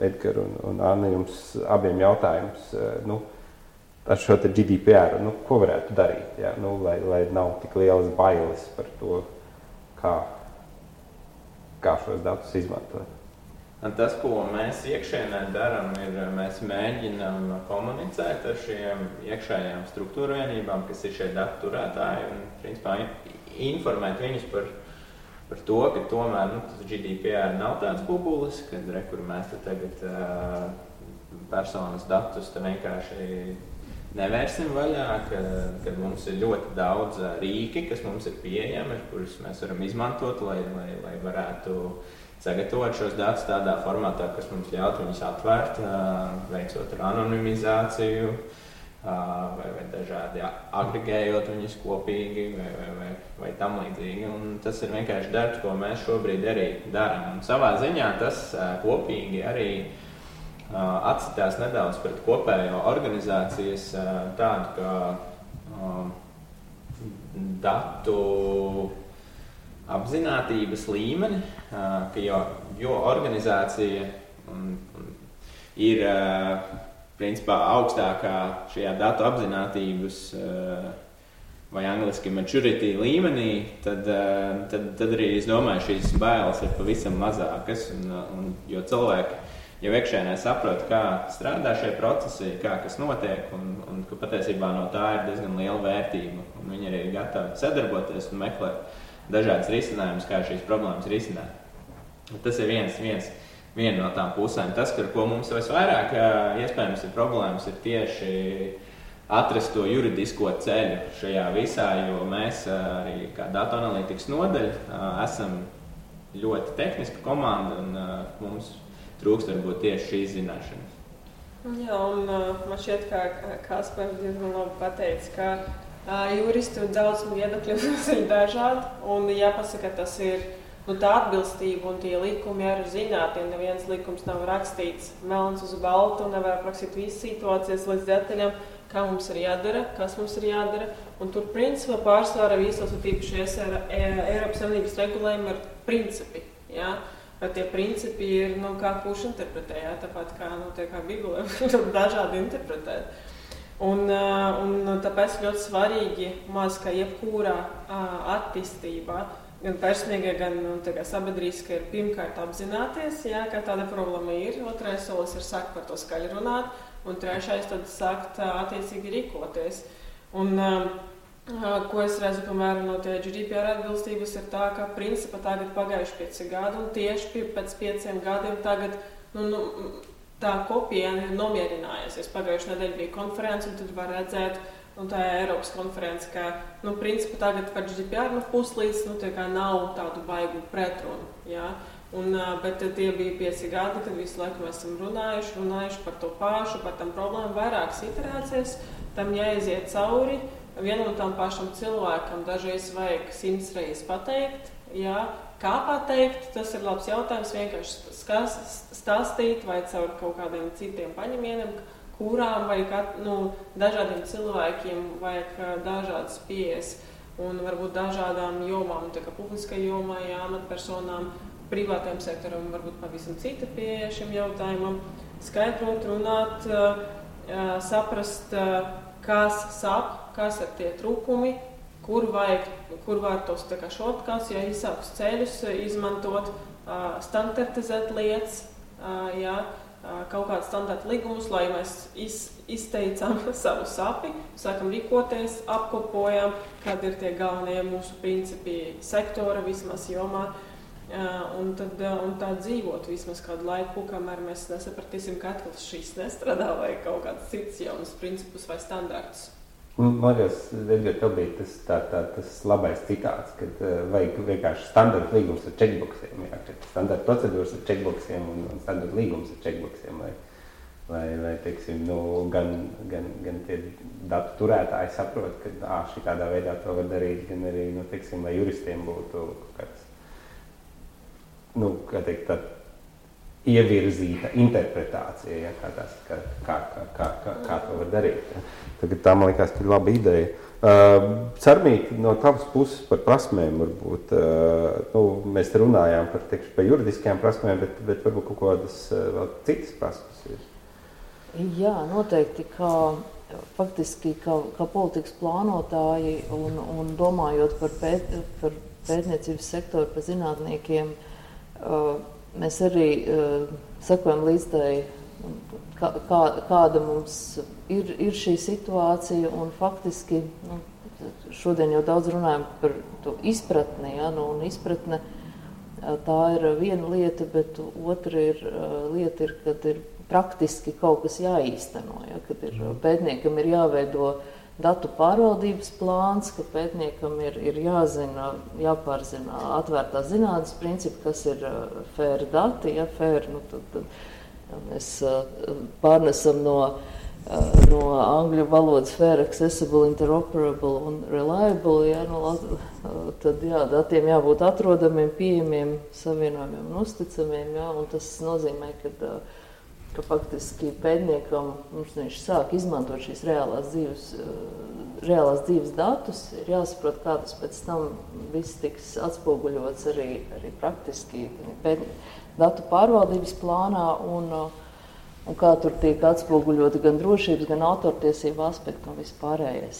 Edgar un Anna, jums abiem jautājums ar šo GDPR, ko varētu darīt, jā, lai nav tik lielas bailes par to, kā šos datus izmantot.
Un tas, ko mēs iekšēnē darām, ir mēs mēģinām komunicēt ar šiem iekšējām struktūra vienībām, kas ir šie datu turētāji, un principā informēt viņus par to, ka tomēr tas GDPR nav tāds bubulis, kad kur mēs tagad personas datus vienkārši nevērsim vaļā, kad mums ir ļoti daudz rīki, kas mums ir pieejami, kurus mēs varam izmantot, lai varētu sagatavot šos datus tādā formātā, kas mums ļaut viņus atvērt, veicot ar anonimizāciju, vai dažādi agregējot viņus kopīgi, vai tam līdzīgi. Un tas ir vienkārši darbs, ko mēs šobrīd arī darām. Un savā ziņā tas kopīgi arī atcitās nedaudz pret kopējo organizācijas tādu, kā datu apzinātības līmeni, ka jo organizācija ir principā augstākā šajā datu apzinātības vai angliski maturity līmenī, tad arī, es domāju, šīs bailes ir pavisam mazākas, jo cilvēki jau iekšēnē saprot, kā strādā šie procesi, kā kas notiek, un ka patiesībā no tā ir diezgan liela vērtība, un viņi arī ir gatavi sadarboties un meklēt dažādas risinājumus, kā šīs problēmas risināt. Tas ir viena no tām pusēm. Tas, ar ko mums visvairāk iespējams ir problēmas, ir tieši atrast to juridisko ceļu šajā visā, jo mēs arī kā datu analītikas nodaļa esam ļoti tehniska komanda, un mums trūkst varbūt tieši šīs zināšanas.
Jā, un man šķiet, ka Kaspars diezgan labi pateica, ka juristu daudz viedokļu ir dažādi, un jāpasaka, tas ir tā atbilstība un tie likumi arī zināti. Neviens likums nav rakstīts melns uz baltu, nevar aprakstīt visas situācijas līdz detaļām, kā mums ir jādara, kas mums ir jādara. Un tur principā pārsvarā visos tīpaši Eiropas Savienības regulējumi ir principi. Ja? Bet tie principi ir, kā kurš interpretē, ja? Tāpat kā Bībelē, dažādi interpretēt. Un tāpēc ļoti svarīgi, ka jebkurā attīstībā, gan personīgai, gan sabiedrīskai, ir pirmkārt apzināties, ja, ka tāda problēma ir. Otrais solis ir sākt par to skaļi runāt, un trešais tad sākt attiecīgi rīkoties. Un ko es redzu, piemēram, no tie GDPR atbilstības ir tā, ka principā tagad pagājuši 5 gadi, un tieši pēc 5 gadiem tagad, tā kopiena ir nomierinājusies. Pagājušajā nedēļā bija konference, un tad var redzēt, tā ir Eiropas konference, ka, principā tagad par GDPR puslīdz, tā kā nav tādu baigu pretrunu, jā. Bet tie bija 5 gadi, kad visu laiku mēs esam runājuši par to pašu, par tām problēmām, vairākas iterācijas, tam jāiziet cauri. Vienam un tam pašam cilvēkam dažreiz vajag 100 reizes pateikt, jā. Kā pateikt, tas ir labs jautājums, vienkārši stāstīt vai caur kaut kādiem citiem paņemieniem, kurām vajag, dažādiem cilvēkiem vajag dažādas pieejas un varbūt dažādām jomām, tā kā publiskai jomai, amatpersonām, privātajam sektoram, varbūt pavisam cita pieeja šim jautājumam, skaidrot, runāt, saprast, kas sāp, kas ir tie trūkumi, kur var tos šortcuts, īsākus ceļus izmantot, standartizēt lietas, kaut kādu standarta līgumus, lai mēs izteicām savu sapi, sākam rīkoties, apkopojam, kādi ir tie galvenie mūsu principi sektora vismaz jomā, un tā dzīvot vismaz kādu laiku, kamēr mēs nesapratīsim, ka atkal šīs nestrādā vai kaut kāds cits jaunas principus vai standartus.
Man liekas, Edgar, tev bija tas labais citāts, kad vajag vienkārši standarta līgums ar checkboxiem, standarta procedūras ar checkboxiem un standarta līgums ar checkboxiem, lai teiksim, gan tie datu turētāji saprot, ka šitādā veidā to var darīt, gan arī, teiksim, lai juristiem būtu kāds, kā teikt, tā ievirzīta interpretācija, kā to var darīt. Tagad tā, man liekas, ir laba ideja. Sarmīt, no tavas puses par prasmēm varbūt, mēs runājām par juridiskajām prasmēm, bet varbūt kaut kādas vēl citas prasmes ir.
Jā, noteikti, faktiski kā politikas plānotāji un domājot par pētniecības sektoru, par zinātniekiem, mēs arī sekojam līdz tai, kāda mums ir šī situācija, un faktiski šodien jau daudz runājam par to izpratni, un izpratne tā ir viena lieta, bet otra lieta ir, kad ir praktiski kaut kas jāīsteno, kad pētniekam ir jāveido datu pārvaldības plāns, ka pētniekam ir jāpārzina atvērtās zinātnes principi, kas ir fair dati, fair, tad mēs pārnesam no angļu valodas fair, accessible, interoperable un reliable, tad datiem jābūt atrodamiem, pieejamiem, savienojumiem un uzticamiem, un tas nozīmē, ka faktiski pētniekam, viņš sāk izmantot šīs reālās dzīves datus, ir jāsaprot, kā tas pēc tam viss tiks atspoguļots arī praktiski datu pārvaldības plānā un kā tur tiek atspoguļoti gan drošības, gan autortiesību aspekti un viss pārējais.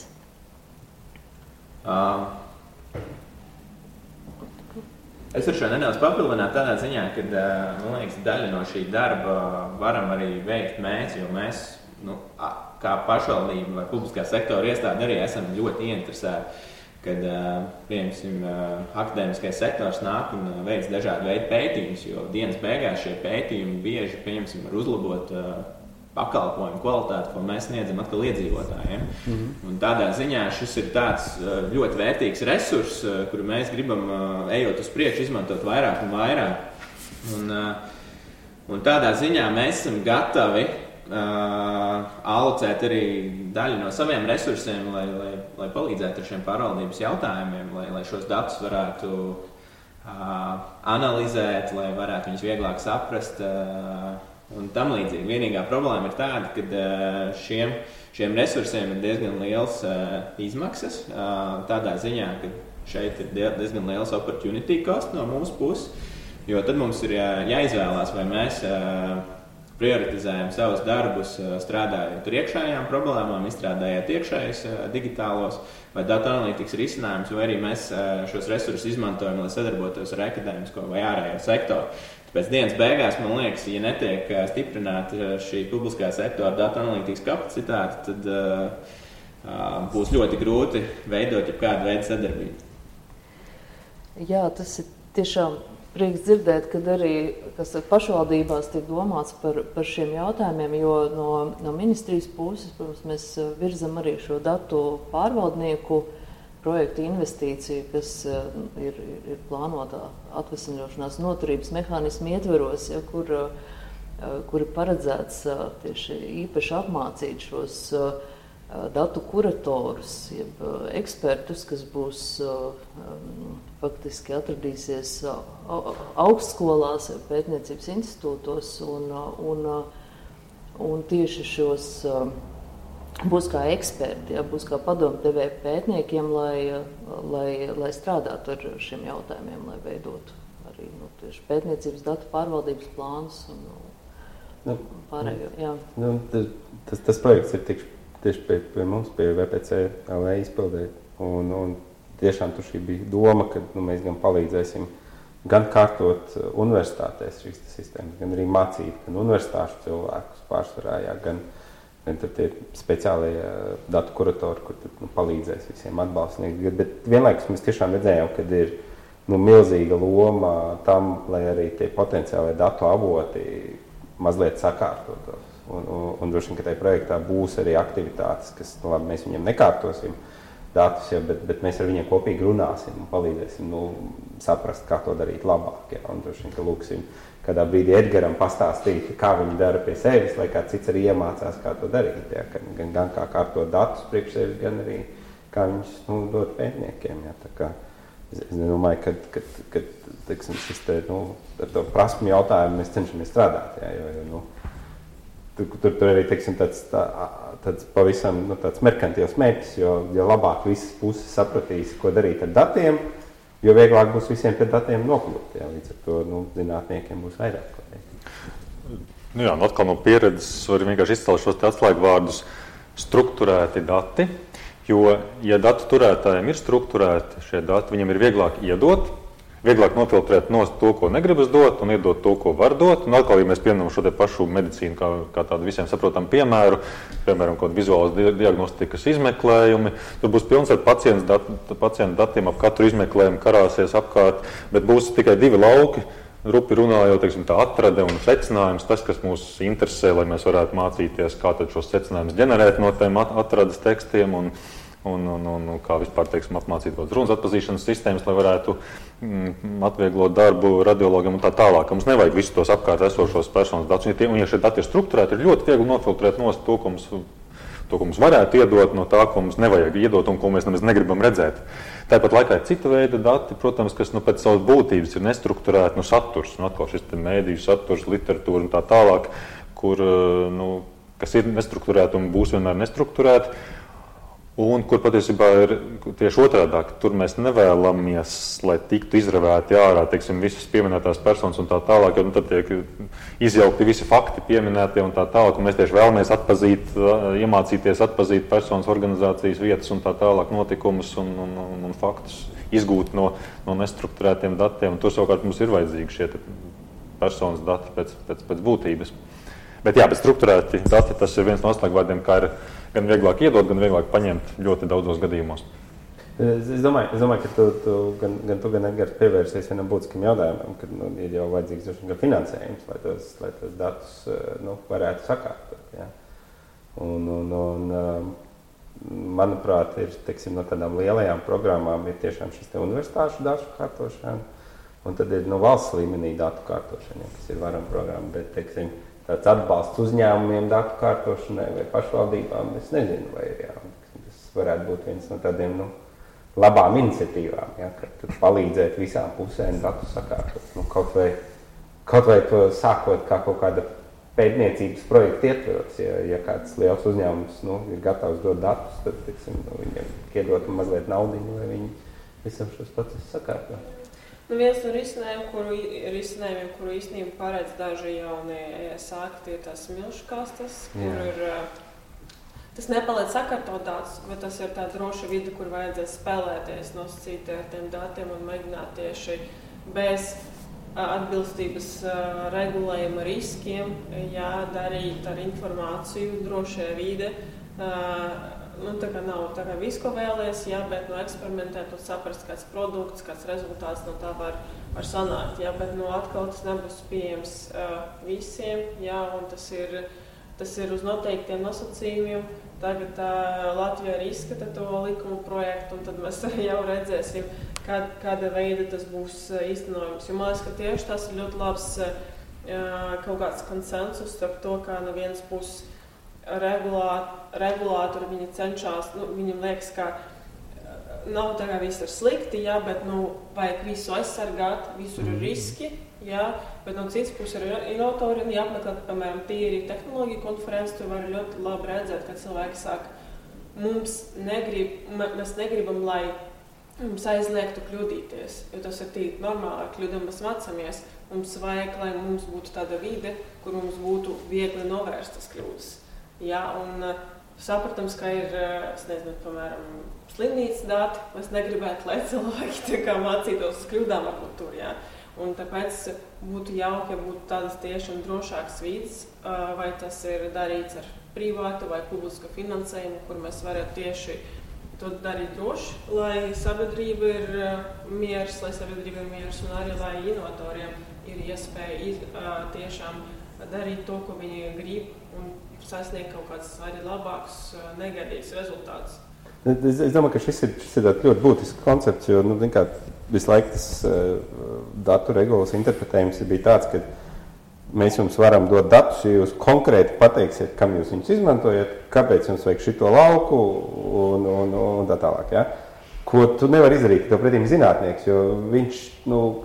Es varu šo nedaudz papildināt tādā ziņā, ka, man liekas, daļa no šī darba varam arī veikt mēs, jo mēs, kā pašvaldība vai publiskā sektora iestāde arī esam ļoti ieinteresēti, kad, piemēram, akadēmiskais sektors nāk un veic dažādu veidu pētījumus, jo dienas beigās šie pētījumi bieži, piemēram, var uzlabot pakalpojumu kvalitāti, ko mēs sniedzam atkal iedzīvotājiem. Un tādā ziņā šis ir tāds ļoti vērtīgs resurs, kuru mēs gribam, ejot uz priekšu, izmantot vairāk un vairāk. Un tādā ziņā mēs esam gatavi alocēt arī daļu no saviem resursiem, lai palīdzētu ar šiem pārvaldības jautājumiem, lai šos datus varētu analizēt, lai varētu viņus vieglāk saprast un tam līdzīgi. Vienīgā problēma ir tāda, ka šiem resursiem ir diezgan liels izmaksas, tādā ziņā, ka šeit ir diezgan liels opportunity cost no mūsu puses, jo tad mums ir jāizvēlās, vai mēs prioritizējam savus darbus, strādājot ar iekšējām problēmām, izstrādājot iekšējus digitālos vai datu analītikas risinājumus, vai arī mēs šos resursus izmantojam, lai sadarbotos ar akadēmisko vai ārējo sektoru. Tāpēc dienas beigās, man liekas, ja netiek stiprināta šī publiskā sektora datu analītikas kapacitāte, tad būs ļoti grūti veidot jebkādu veidu sadarbību.
Jā, tas ir tiešām prieks dzirdēt, kad arī pašvaldībās tiek domāts par šiem jautājumiem, jo no ministrijas puses, protams, mēs virzam arī šo datu pārvaldnieku projekta investīcija, kas ir plānotā atvesaļošanās noturības mehānismu ietveros, ja, kur ir paredzēts tieši īpaši apmācīt šos datu kuratorus, jeb ekspertus, kas būs faktiski atradīsies augstskolās, pētniecības institūtos un tieši šos būs kā eksperti, ja, būs kā padomdevēji pētniekiem, lai strādātu ar šiem jautājumiem, lai veidotu arī tieši pētniecības datu pārvaldības plānus un pārējo. Jā.
Tas projekts ir tieši pie mums, pie VPC LV izpildē, un tiešām tur šī bija doma, ka mēs gan palīdzēsim gan kārtot universitātēs šīs sistēmas, gan arī mācīt, gan universitāšu cilvēkus pārsvarā, gan tur tie speciālie datu kuratori, kur palīdzēs visiem atbalstniekiem. Bet vienlaikus mēs tiešām redzējām, ka ir milzīga loma tam, lai arī tie potenciālie datu avoti mazliet sakārtotos. Un droši vien, ka tajā projektā būs arī aktivitātes, kas, labi, mēs viņiem nekārtosim datus, bet mēs ar viņiem kopīgi runāsim un palīdzēsim saprast, kā to darīt labāk. Ja? Un droši vien, ka lūksim kādā brīdī Edgaram pastāstīt, kā viņi dara pie sevis, lai kāds cits arī iemācās, kā to darīt. Ja? Gan kā kārtot datus priekš sevis, gan arī kā viņus dot pētniekiem. Ja? Tā kā es domāju, ka teiksim, šis te, ar to prasmu jautājumu mēs cenšamies strādāt. Ja? Jo tur arī teiksim, tāds pavisam tāds merkantils mērķis, jo labāk visas puses sapratīs, ko darīt ar datiem, jo vieglāk būs visiem pie datiem nokļūt. Jā, līdz ar to zinātniekiem būs vairāk.
Jā, atkal no pieredzes var vienkārši izcelt šos atslēgvārdus strukturēti dati, jo, ja datu turētājiem ir strukturēti šie dati, viņiem ir vieglāk iedot, vieglāk nofiltrēt nost to, ko negribas dot, un iedot to, ko var dot. Un atkal, ja mēs pieņemam šo te pašu medicīnu kā tādu visiem saprotamu piemēram, kaut vizuālas diagnostikas izmeklējumi, tur būs pilns ar pacientu datiem, ap katru izmeklējumu karāsies apkārt, bet būs tikai divi lauki, rupi runājot, teiksim, tā atrade un secinājums, tas, kas mūs interesē, lai mēs varētu mācīties, kā tad šos secinājumus ģenerēt no tiem atrades tekstiem un kā vispār, teiksim, apmācīt runas atpazīšanas sistēmas, lai varētu atvieglot darbu radiologam un tā tālāk. Mums nevajag visus tos apkārt esošos personas datus. Un ja šie dati ir strukturēti, ir ļoti viegli nofiltrēt nost to, ko mums varētu iedot no tā, ko mums nevajag iedot un ko mēs nemaz negribam redzēt. Tāpat laikā ir cita veida dati, protams, kas pēc savas būtības ir nestrukturēti, saturs, atkal šis mēdīju saturs, literatūra un tā tālāk, kas ir nestrukturēti un būs vienmēr nestrukturēti. Un kur patiesībā ir tieši otrādāk, tur mēs nevēlamies, lai tiktu izravēti ārā, teiksim, visas pieminētās personas un tā tālāk, jo tad tiek izjaukti visi fakti pieminētie un tā tālāk, un mēs tieši vēlamies iemācīties atpazīt personas, organizācijas vietas un tā tālāk notikumus un faktus, izgūt no nestrukturētiem datiem, un tur savukārt mums ir vajadzīgi šie personas dati pēc būtības. Bet strukturēti dati, tas ir viens no atslēgvārdiem, kā ir gan vieglāk iedot, gan vieglāk paņemt ļoti daudzos gadījumos.
Es domāju, ka gan tu, gan Edgars pievērsies vienam būtiskam jautājumam, kad ir jau vajadzīgs gan finansējums, lai tos datus varētu sakārtot. Ja? Un manuprāt, ir, teiksim, no tādām lielajām programmām ir tiešām šis universitāšu datu kārtošana, un tad ir valsts līmenī datu kārtošana, kas ir varam programma, bet, teiksim, tāds atbalsts uzņēmumiem datu kārtošanai vai pašvaldībām, es nezinu, vai ir tas varētu būt viens no tādiem labām iniciatīvām, ja, kad palīdzēt visām pusēm datu sakārtot. Kaut vai to sākot kā kaut kāda pētniecības projekta ietveros, ja kāds liels uzņēmums ir gatavs dot datus, tad teiksim, viņiem iedot mazliet naudiņu, lai viņi visam šos procesus sakārtot.
Viens no risinājumiem, kuru īstenībā paredz daži jaunie sākti, ir tās milškastes, kur ir, tas nepaliek sakārtot datus, bet tas ir tā droša vide, kur vajadzēs spēlēties, nosacīt ar tiem datiem un mēģināt tieši bez atbilstības regulējuma riskiem, darīt ar informāciju drošajā vide. Tā kā nav tā kā visu, ko vēlies, bet eksperimentēt un saprast, kāds produkts, kāds rezultāts no tā var sanākt. Bet atkal tas nebūs pieejams visiem, un tas ir uz noteiktiem nosacījumiem. tagad Latvijā arī izskata to likumu projektu, un tad mēs arī jau redzēsim, kāda veida tas būs īstenojums. Jo man liekas, ka tieši tas ir ļoti labs kaut kāds konsensus starp to, kā no vienas puses regulātori viņi cenšas, viņam liekas, ka nav tā kā viss ir slikti, jā, bet vajag visu aizsargāt, visur ir riski, jā, bet no citas puses ir inovatori, un jāapmeklē, piemēram, tīri tehnoloģiju konferences, tur var ļoti labi redzēt, ka cilvēki saka, mēs negribam, lai mums aizliegtu kļūdīties, jo tas ir tīri normāli, ar kļūdām mēs mācāmies, mums vajag, lai mums būtu tāda vide, kur mums būtu viegli novērstas kļūdas, jā, un sapratams, ka ir, es nezinu, piemēram, slimnīcas dati, mēs negribētu, lai cilvēki tā kā mācītos uz kļūdām varbūt tur, jā. Un tāpēc būtu jauki, ja būtu tādas tiešām drošākas vides, vai tas ir darīts ar privātu vai publisku finansējumu, kur mēs varētu tieši to darīt droši, lai sabiedrība ir miers, un arī, lai inovatoriem ir iespēja tiešām darīt to, ko viņi grib, un sasniegt kaut kāds arī labāks, negaidīts rezultāts.
Es domāju, ka šis ir ļoti būtisks koncepts, jo visu laiku tas datu regulas interpretējums bija tāds, ka mēs jums varam dot datus, ja jūs konkrēti pateiksiet, kam jūs viņus izmantojat, kāpēc jums vajag šito lauku un tā tālāk. Ja? Ko tu nevari izdarīt, tev pretīm zinātnieks, jo viņš,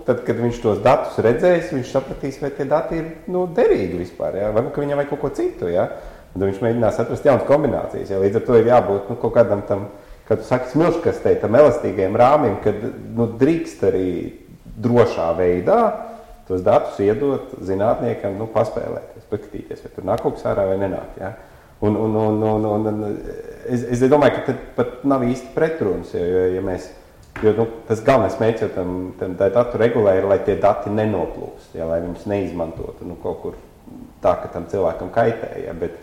tad, kad viņš tos datus redzēs, viņš sapratīs, vai tie dati ir derīgi vispār, ja? Varbūt, ka viņam vajag kaut ko citu, ja? Un viņš mēģinās atrast jaunas kombinācijas, ja? Līdz ar to ir jābūt kaut kādam tam, kad tu saki smilškastei, tam elastīgajam rāmim, kad drīkst arī drošā veidā tos datus iedot zinātniekam, paspēlēties, paskatīties, vai tur nāk kaut kas ārā vai nenāk, ja? Un es domāju, ka tad pat nav īsti pretrunas, jo tas galvenais mērķis jau tam datu regulē ir, lai tie dati nenoplūst, ja, lai viņus neizmantotu kaut kur tā, ka tam cilvēkam kaitē, ja, bet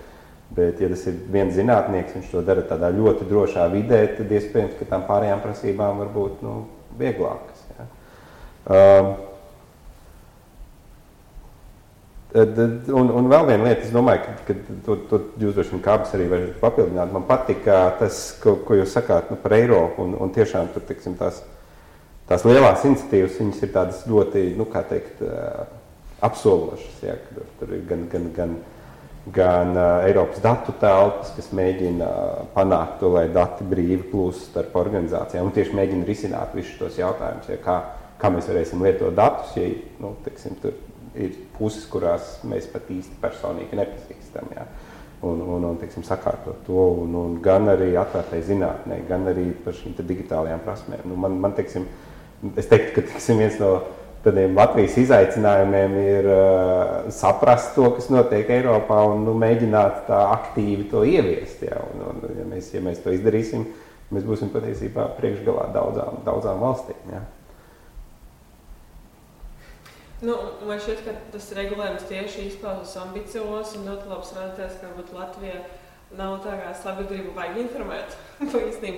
ja tas ir viens zinātnieks, viņš to dara tādā ļoti drošā vidē, tad iespējams, ka tām pārējām prasībām var būt vieglākas. Ja. Un vēl viena lieta, es domāju, ka to jūs droši vien kāpes arī varat papildināt. Man patika tas, ko jūs sakāt par Eiropu, un tiešām tur, teiksim, tās lielās iniciatīvas, viņas ir tādas ļoti, apsološas, ja, tur ir gan Eiropas datu telpas, kas mēģina panākt to, lai dati brīvi plūst starp organizācijām, un tieši mēģina risināt visus tos jautājumus, ja, kā mēs varēsim lietot datus, ja, teiksim, tur ir puses, kurās mēs pat īsti personīgi nepazīstam, ja, un teiksim, sakārtot to, un gan arī atvērtai zinātnē, gan arī par šīm digitālajām prasmēm. Man teiksim, es teiktu, ka teiksim, viens no tādiem Latvijas izaicinājumiem ir saprast to, kas notiek Eiropā, un mēģināt tā aktīvi to ieviest. Ja, ja mēs to izdarīsim, mēs būsim patiesībā priekšgalā daudzām valstīm. Ja.
Man šķiet, ka tas regulējums tieši izklausās ambiciozs un ļoti labs redzēs, ka Latvija nav tā kā sabiedrība vajag informēt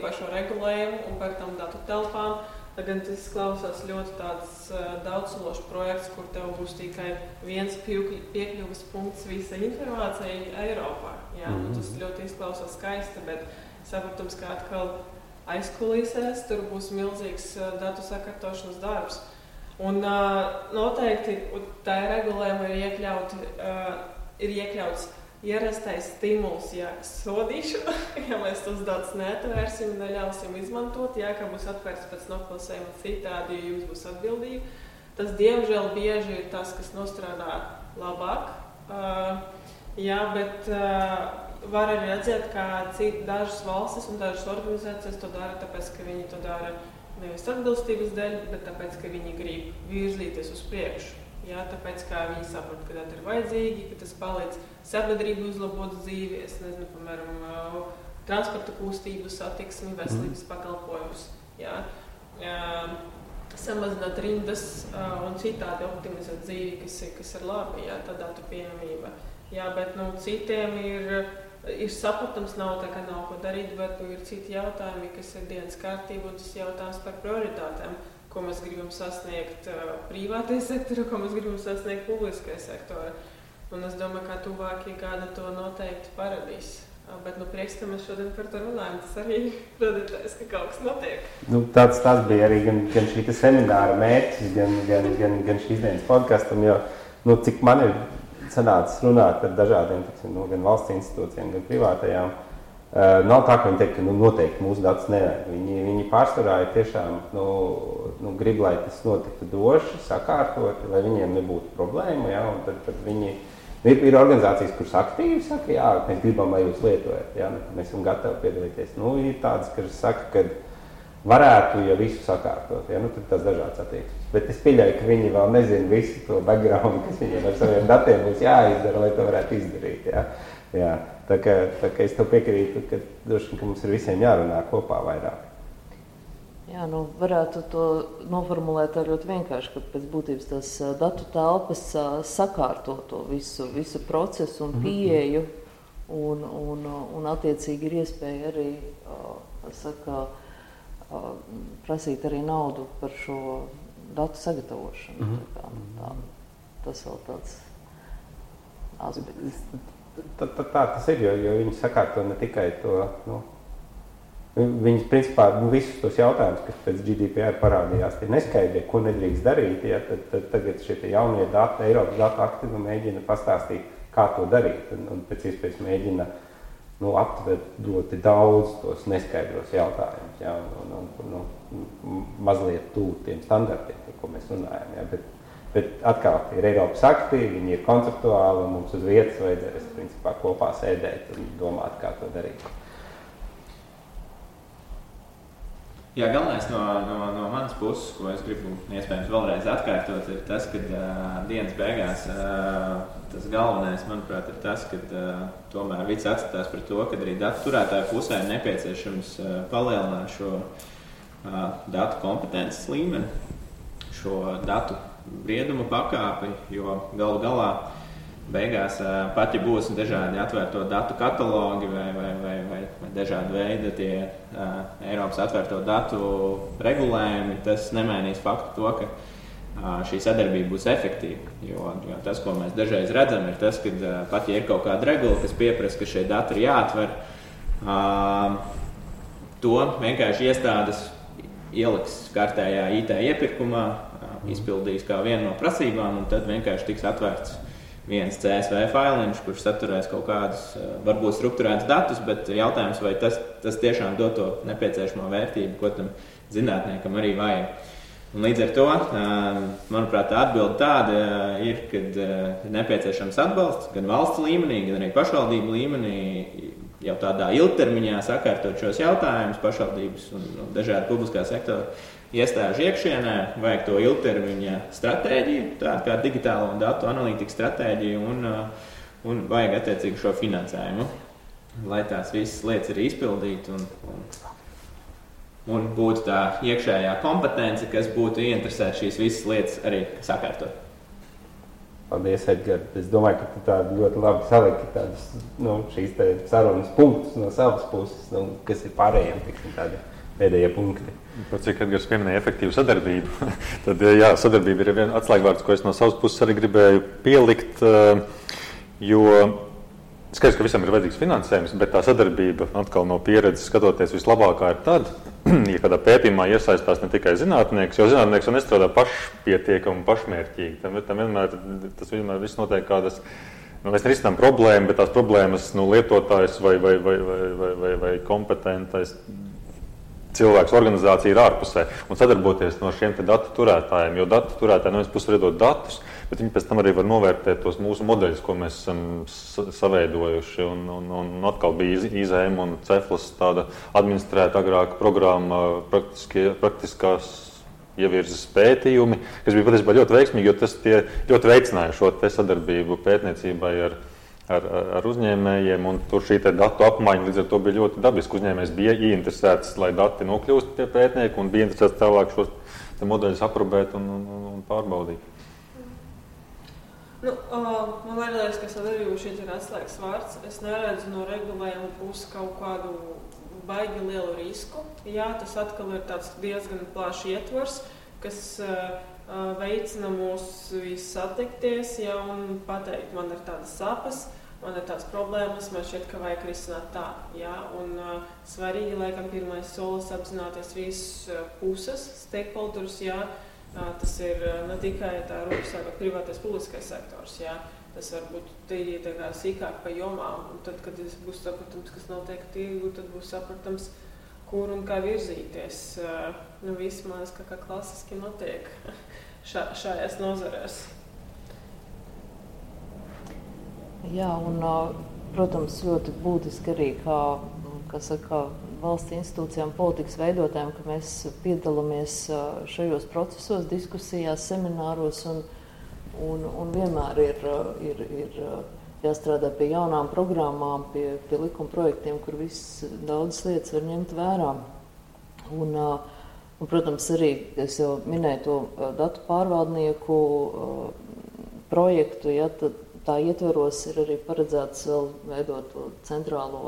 par šo regulējumu un par tam datu telpām. Gan tas klausās ļoti tāds daudzsološs projekts, kur tev būs tikai viens piekļuves punkts visai informācijai Eiropā. Jā, tas ļoti izklausās skaisti, bet saprotams, ka atkal aizkulisēs tur būs milzīgs datu sakārtošanas darbs. Un noteikti tā regulējuma ir iekļauts ierastais stimuls, sodīšana, ja mēs tos datus neatvērsim un neļausim izmantot, ka būs atvērts pēc noklasējuma citādi, jo jums būs atbildība. Tas, diemžēl, bieži ir tas, kas nostrādā labāk, bet var arī redzēt, ka dažas valstis un dažas organizācijas to dara, tāpēc, ka viņi to dara nevis atbilstības dēļ, bet tāpēc, ka viņi grib virzīties uz priekšu. Jā, tāpēc, kā viņi saprot, ka tas ir vajadzīgi, ka tas palīdz sabiedrību uzlabot dzīvi, es nezinu, piemēram, transporta kustību, satiksmi, veselības pakalpojumus, jā, samazināt rindas un citādi optimizēt dzīvi, kas ir labi, jā, tā datu pieejamība. Jā, bet, citiem ir saprotams, nav tā, ka nav ko darīt, bet ir citi jautājumi, kas ir dienas kārtība, un tas jautājums par prioritātēm, ko mēs gribam sasniegt privātajā sektorā, ko mēs gribam sasniegt publiskajā sektorā. Un es domāju, ka tuvākie gadi to noteikti parādīs. Bet prieks, ka mēs šodien par to runājam. Tas arī radītājs, ka kaut kas notiek.
Tas bija arī gan šī semināra mērķis, gan šīs dienas podkastam, jo cik man ir sanācis runāt ar dažādiem, gan valsts institūcijiem, gan privātajām, nav tā, ka viņi teikt, ka noteikti mūsu datus nevajag. Viņi pārsvarā ir tiešām grib, lai tas notiktu droši, sakārtoti, lai viņiem nebūtu problēma, ja, un tad viņi ir organizācijas, kuras aktīvi saka, jā, mēs gribam, lai jūs lietojat, jā, mēs esam gatavi piedalīties. Ir tādas, kas saka, ka varētu, ja visu sakārtot, jā, tad tas dažāds attieksmes. Bet es pieļauju, ka viņi vēl nezina visu to background, kas viņiem ar saviem datiem būs jāizdara, lai to varētu izdarīt, jā. Jā, tā kā es tev piekrītu, ka droši, ka mums ir visiem jārunā kopā vairāk.
Jā, varētu to noformulēt ļoti vienkārši, ka pēc būtības tās datu telpas sakārto to visu procesu un pieeju, un attiecīgi ir iespēja arī prasīt arī naudu par šo datu sagatavošanu. Tas vēl tāds aspekts.
Tā tas ir, jo viņi sakārto ne tikai to, Viņas, principā, visus tos jautājumus, kas pēc GDPR parādījās, tie neskaidrie, ko nedrīkst darīt, ja, tad tagad šie jaunie dati, Eiropas datu akti mēģina pastāstīt, kā to darīt, un pēc iespējas mēģina aptvert ļoti daudz tos neskaidros jautājumus, ja, un mazliet tūt tiem standartiem, par ko mēs runājam. Ja, bet atkal ir Eiropas akti, viņi ir konceptuāli, un mums uz vietas vajadzēs, principā, kopā sēdēt un domāt, kā to darīt.
Jā, galvenais no manas puses, ko es gribu iespējams vēlreiz atkārtot, ir tas, ka dienas beigās tas galvenais, manuprāt, ir tas, ka tomēr viss atskatās par to, ka arī datu turētāju pusē ir nepieciešams palielināt šo datu kompetences līmeni, šo datu brieduma pakāpi, jo galu galā beigās pat, ja būs dažādi atvērto datu katalogi vai dažādi veidi tie Eiropas atvērto datu regulējumi, tas nemainīs faktu to, ka šī sadarbība būs efektīva. Jo tas, ko mēs dažreiz redzam, ir tas, ka pat, ja ir kaut kāda regula, kas pieprasa, ka šie dati ir jāatver, to vienkārši iestādes ieliks kārtējā IT iepirkumā, izpildīs kā vienu no prasībām, un tad vienkārši tiks atvērts viens CSV failiņš, kurš saturēs kaut kādus, varbūt strukturētus datus, bet jautājums, vai tas tiešām dod to nepieciešamo vērtību, ko tam zinātniekam arī vajag. Un līdz ar to, manuprāt, tā atbilde tāda ir, kad ir nepieciešams atbalsts gan valsts līmenī, gan arī pašvaldību līmenī, jau tādā ilgtermiņā sakārtot šos jautājumus, pašvaldības un dažādi publiskā sektora iestāžu iekšienē, vajag to ilgtermiņa stratēģiju, tādu kā digitālo un datu analītikas stratēģiju un vajag attiecīgi šo finansējumu, lai tās visas lietas ir izpildīti un būtu tā iekšējā kompetence, kas būtu ieinteresēta šīs visas lietas arī sakārtot.
Paldies, Edgar. Es domāju, ka tu tādu ļoti labi saliki tādus, šīs sarunas punktus no savas puses, kas ir pārējiem, tādi pēdējie punkti.
Par cik Edgars pieminēja efektīvu sadarbību, tad jā, sadarbība ir viena atslēgvārds, ko es no savas puses arī gribēju pielikt, jo skaidrs, ka visam ir vajadzīgs finansējums, bet tā sadarbība atkal no pieredzes skatoties vislabākā ir tad, ja kādā pētījumā iesaistās ne tikai zinātnieks, jo zinātnieks jau nestrādā pašpietiekami un pašmērķīgi. Tas vienmēr viss notiek kādas, mēs nerisinām problēmu, bet tās problēmas lietotājs vai kompetentais cilvēks, organizācija ir ārpusē un sadarboties no šiem datu turētājiem, jo datu turētāji no vienas puses var iedot datus, bet viņi pēc tam arī var novērtēt tos mūsu modeļus, ko mēs esam saveidojuši. Un atkal bija IZM un Ceflas tāda administrēta agrāka programma praktiskās ievirzes pētījumi, kas bija patiesībā ļoti veiksmīgi, jo tas tie ļoti veicināja šo sadarbību pētniecībai ar uzņēmējiem, un tur šī datu apmaiņa līdz ar to bija ļoti dabiski. Uzņēmējs bija ieinteresēts, lai dati nokļūst pie pētnieku, un bija interesēts tālāk šos modeļus aprobēt un pārbaudīt.
Man liekas, ka sadarbība šeit ir atslēgas vārds. Es neredzu no regulējuma puses kaut kādu baigi lielu risku. Jā, tas atkal ir tāds diezgan plašs ietvars, kas veicina mūs visus satikties, ja, un pateikt, man ir tādas sapas, man ir tās problēmas, man šķiet, ka vajag risināt tā. Ja? Un svarīgi, laikam, pirmais solis apzināties visas puses, stakeholders, ja? Tas ir ne tikai tā rūpes privātais publiskais sektors, ja? Tas var būt tīri tā kā sīkāk pa jomām, un tad, kad būs sapratams, kas notiek tirgu, tad būs sapratams, kur un kā virzīties. Viss, man liekas, kā klasiski notiek šajās nozarēs.
Jā, un, protams, ļoti būtiski arī, kā saka, valsts institūcijām, politikas veidotājiem, ka mēs piedalāmies šajos procesos, diskusijās, semināros un vienmēr ir jāstrādā pie jaunām programmām, pie likuma projektiem, kur daudzas lietas var ņemt vērā. Un, protams, arī es jau minēju to datu pārvaldnieku projektu, ja, tā ietveros ir arī paredzēts vēl veidot to centrālo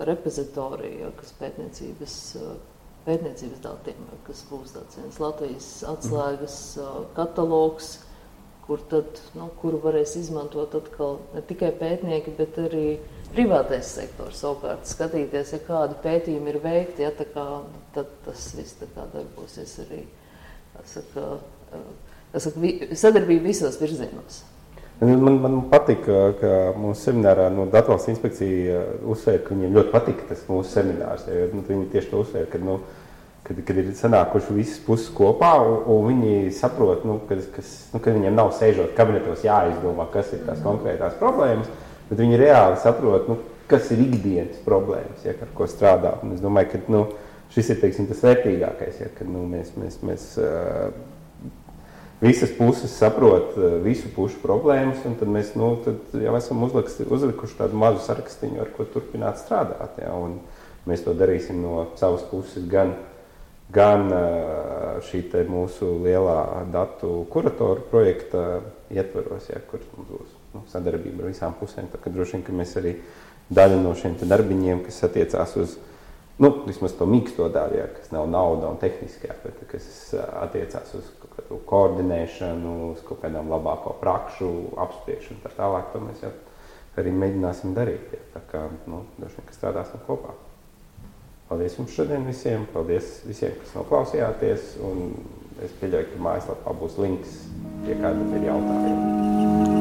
repozitoriju, kas pētniecības datiem, kas būs tāds viens Latvijas atslēgas katalogs, kuru varēs izmantot atkal ne tikai pētnieki, bet arī privātais sektors savukārt skatīties, ja kādi pētījumi ir veikti, ja, tad tas viss darbosies arī, sadarbība visos virzienos.
Man patīk, ka mūsu seminārā Datu inspekcija uzsver, ka viņiem ļoti patīk tas mūsu seminārs. Ja, viņi tieši to uzsver, kad ir sanākuši visas puses kopā, un viņi saprot, ka viņiem nav sēžot kabinetos jāizdomā, kas ir tās konkrētās problēmas, bet viņi reāli saprot, kas ir ikdienas problēmas, ja, ar ko strādā. Un es domāju, ka šis ir, teiksim, tas vērtīgākais, ja, kad mēs visas puses saprot visu pušu problēmas, un tad mēs tad jau esam uzlikuši tādu mazu sarakstiņu, ar ko turpināt strādāt. Ja, un mēs to darīsim no savas puses gan šī te mūsu lielā datu kuratoru projekta ietvaros, ja, kur mums būs sadarbība ar visām pusēm. Tā, ka droši vien, ka mēs arī daļu no šiem te darbiņiem, kas attiecās uz vismaz to mīksto daļu, ja, kas nav nauda un tehniskajā, bet kas attiecās uz koordinēšanu, uz kaut kādām labāko prakšu, apspriešanu, tā tālāk, to mēs jau arī mēģināsim darīt. Ja. Tā kā, droši vien, ka strādāsim kopā. Paldies jums šodien visiem, paldies visiem, kas noklausījāties, un es pieļauju, ka mājaslapā būs links, ja kādam ir jautājumi.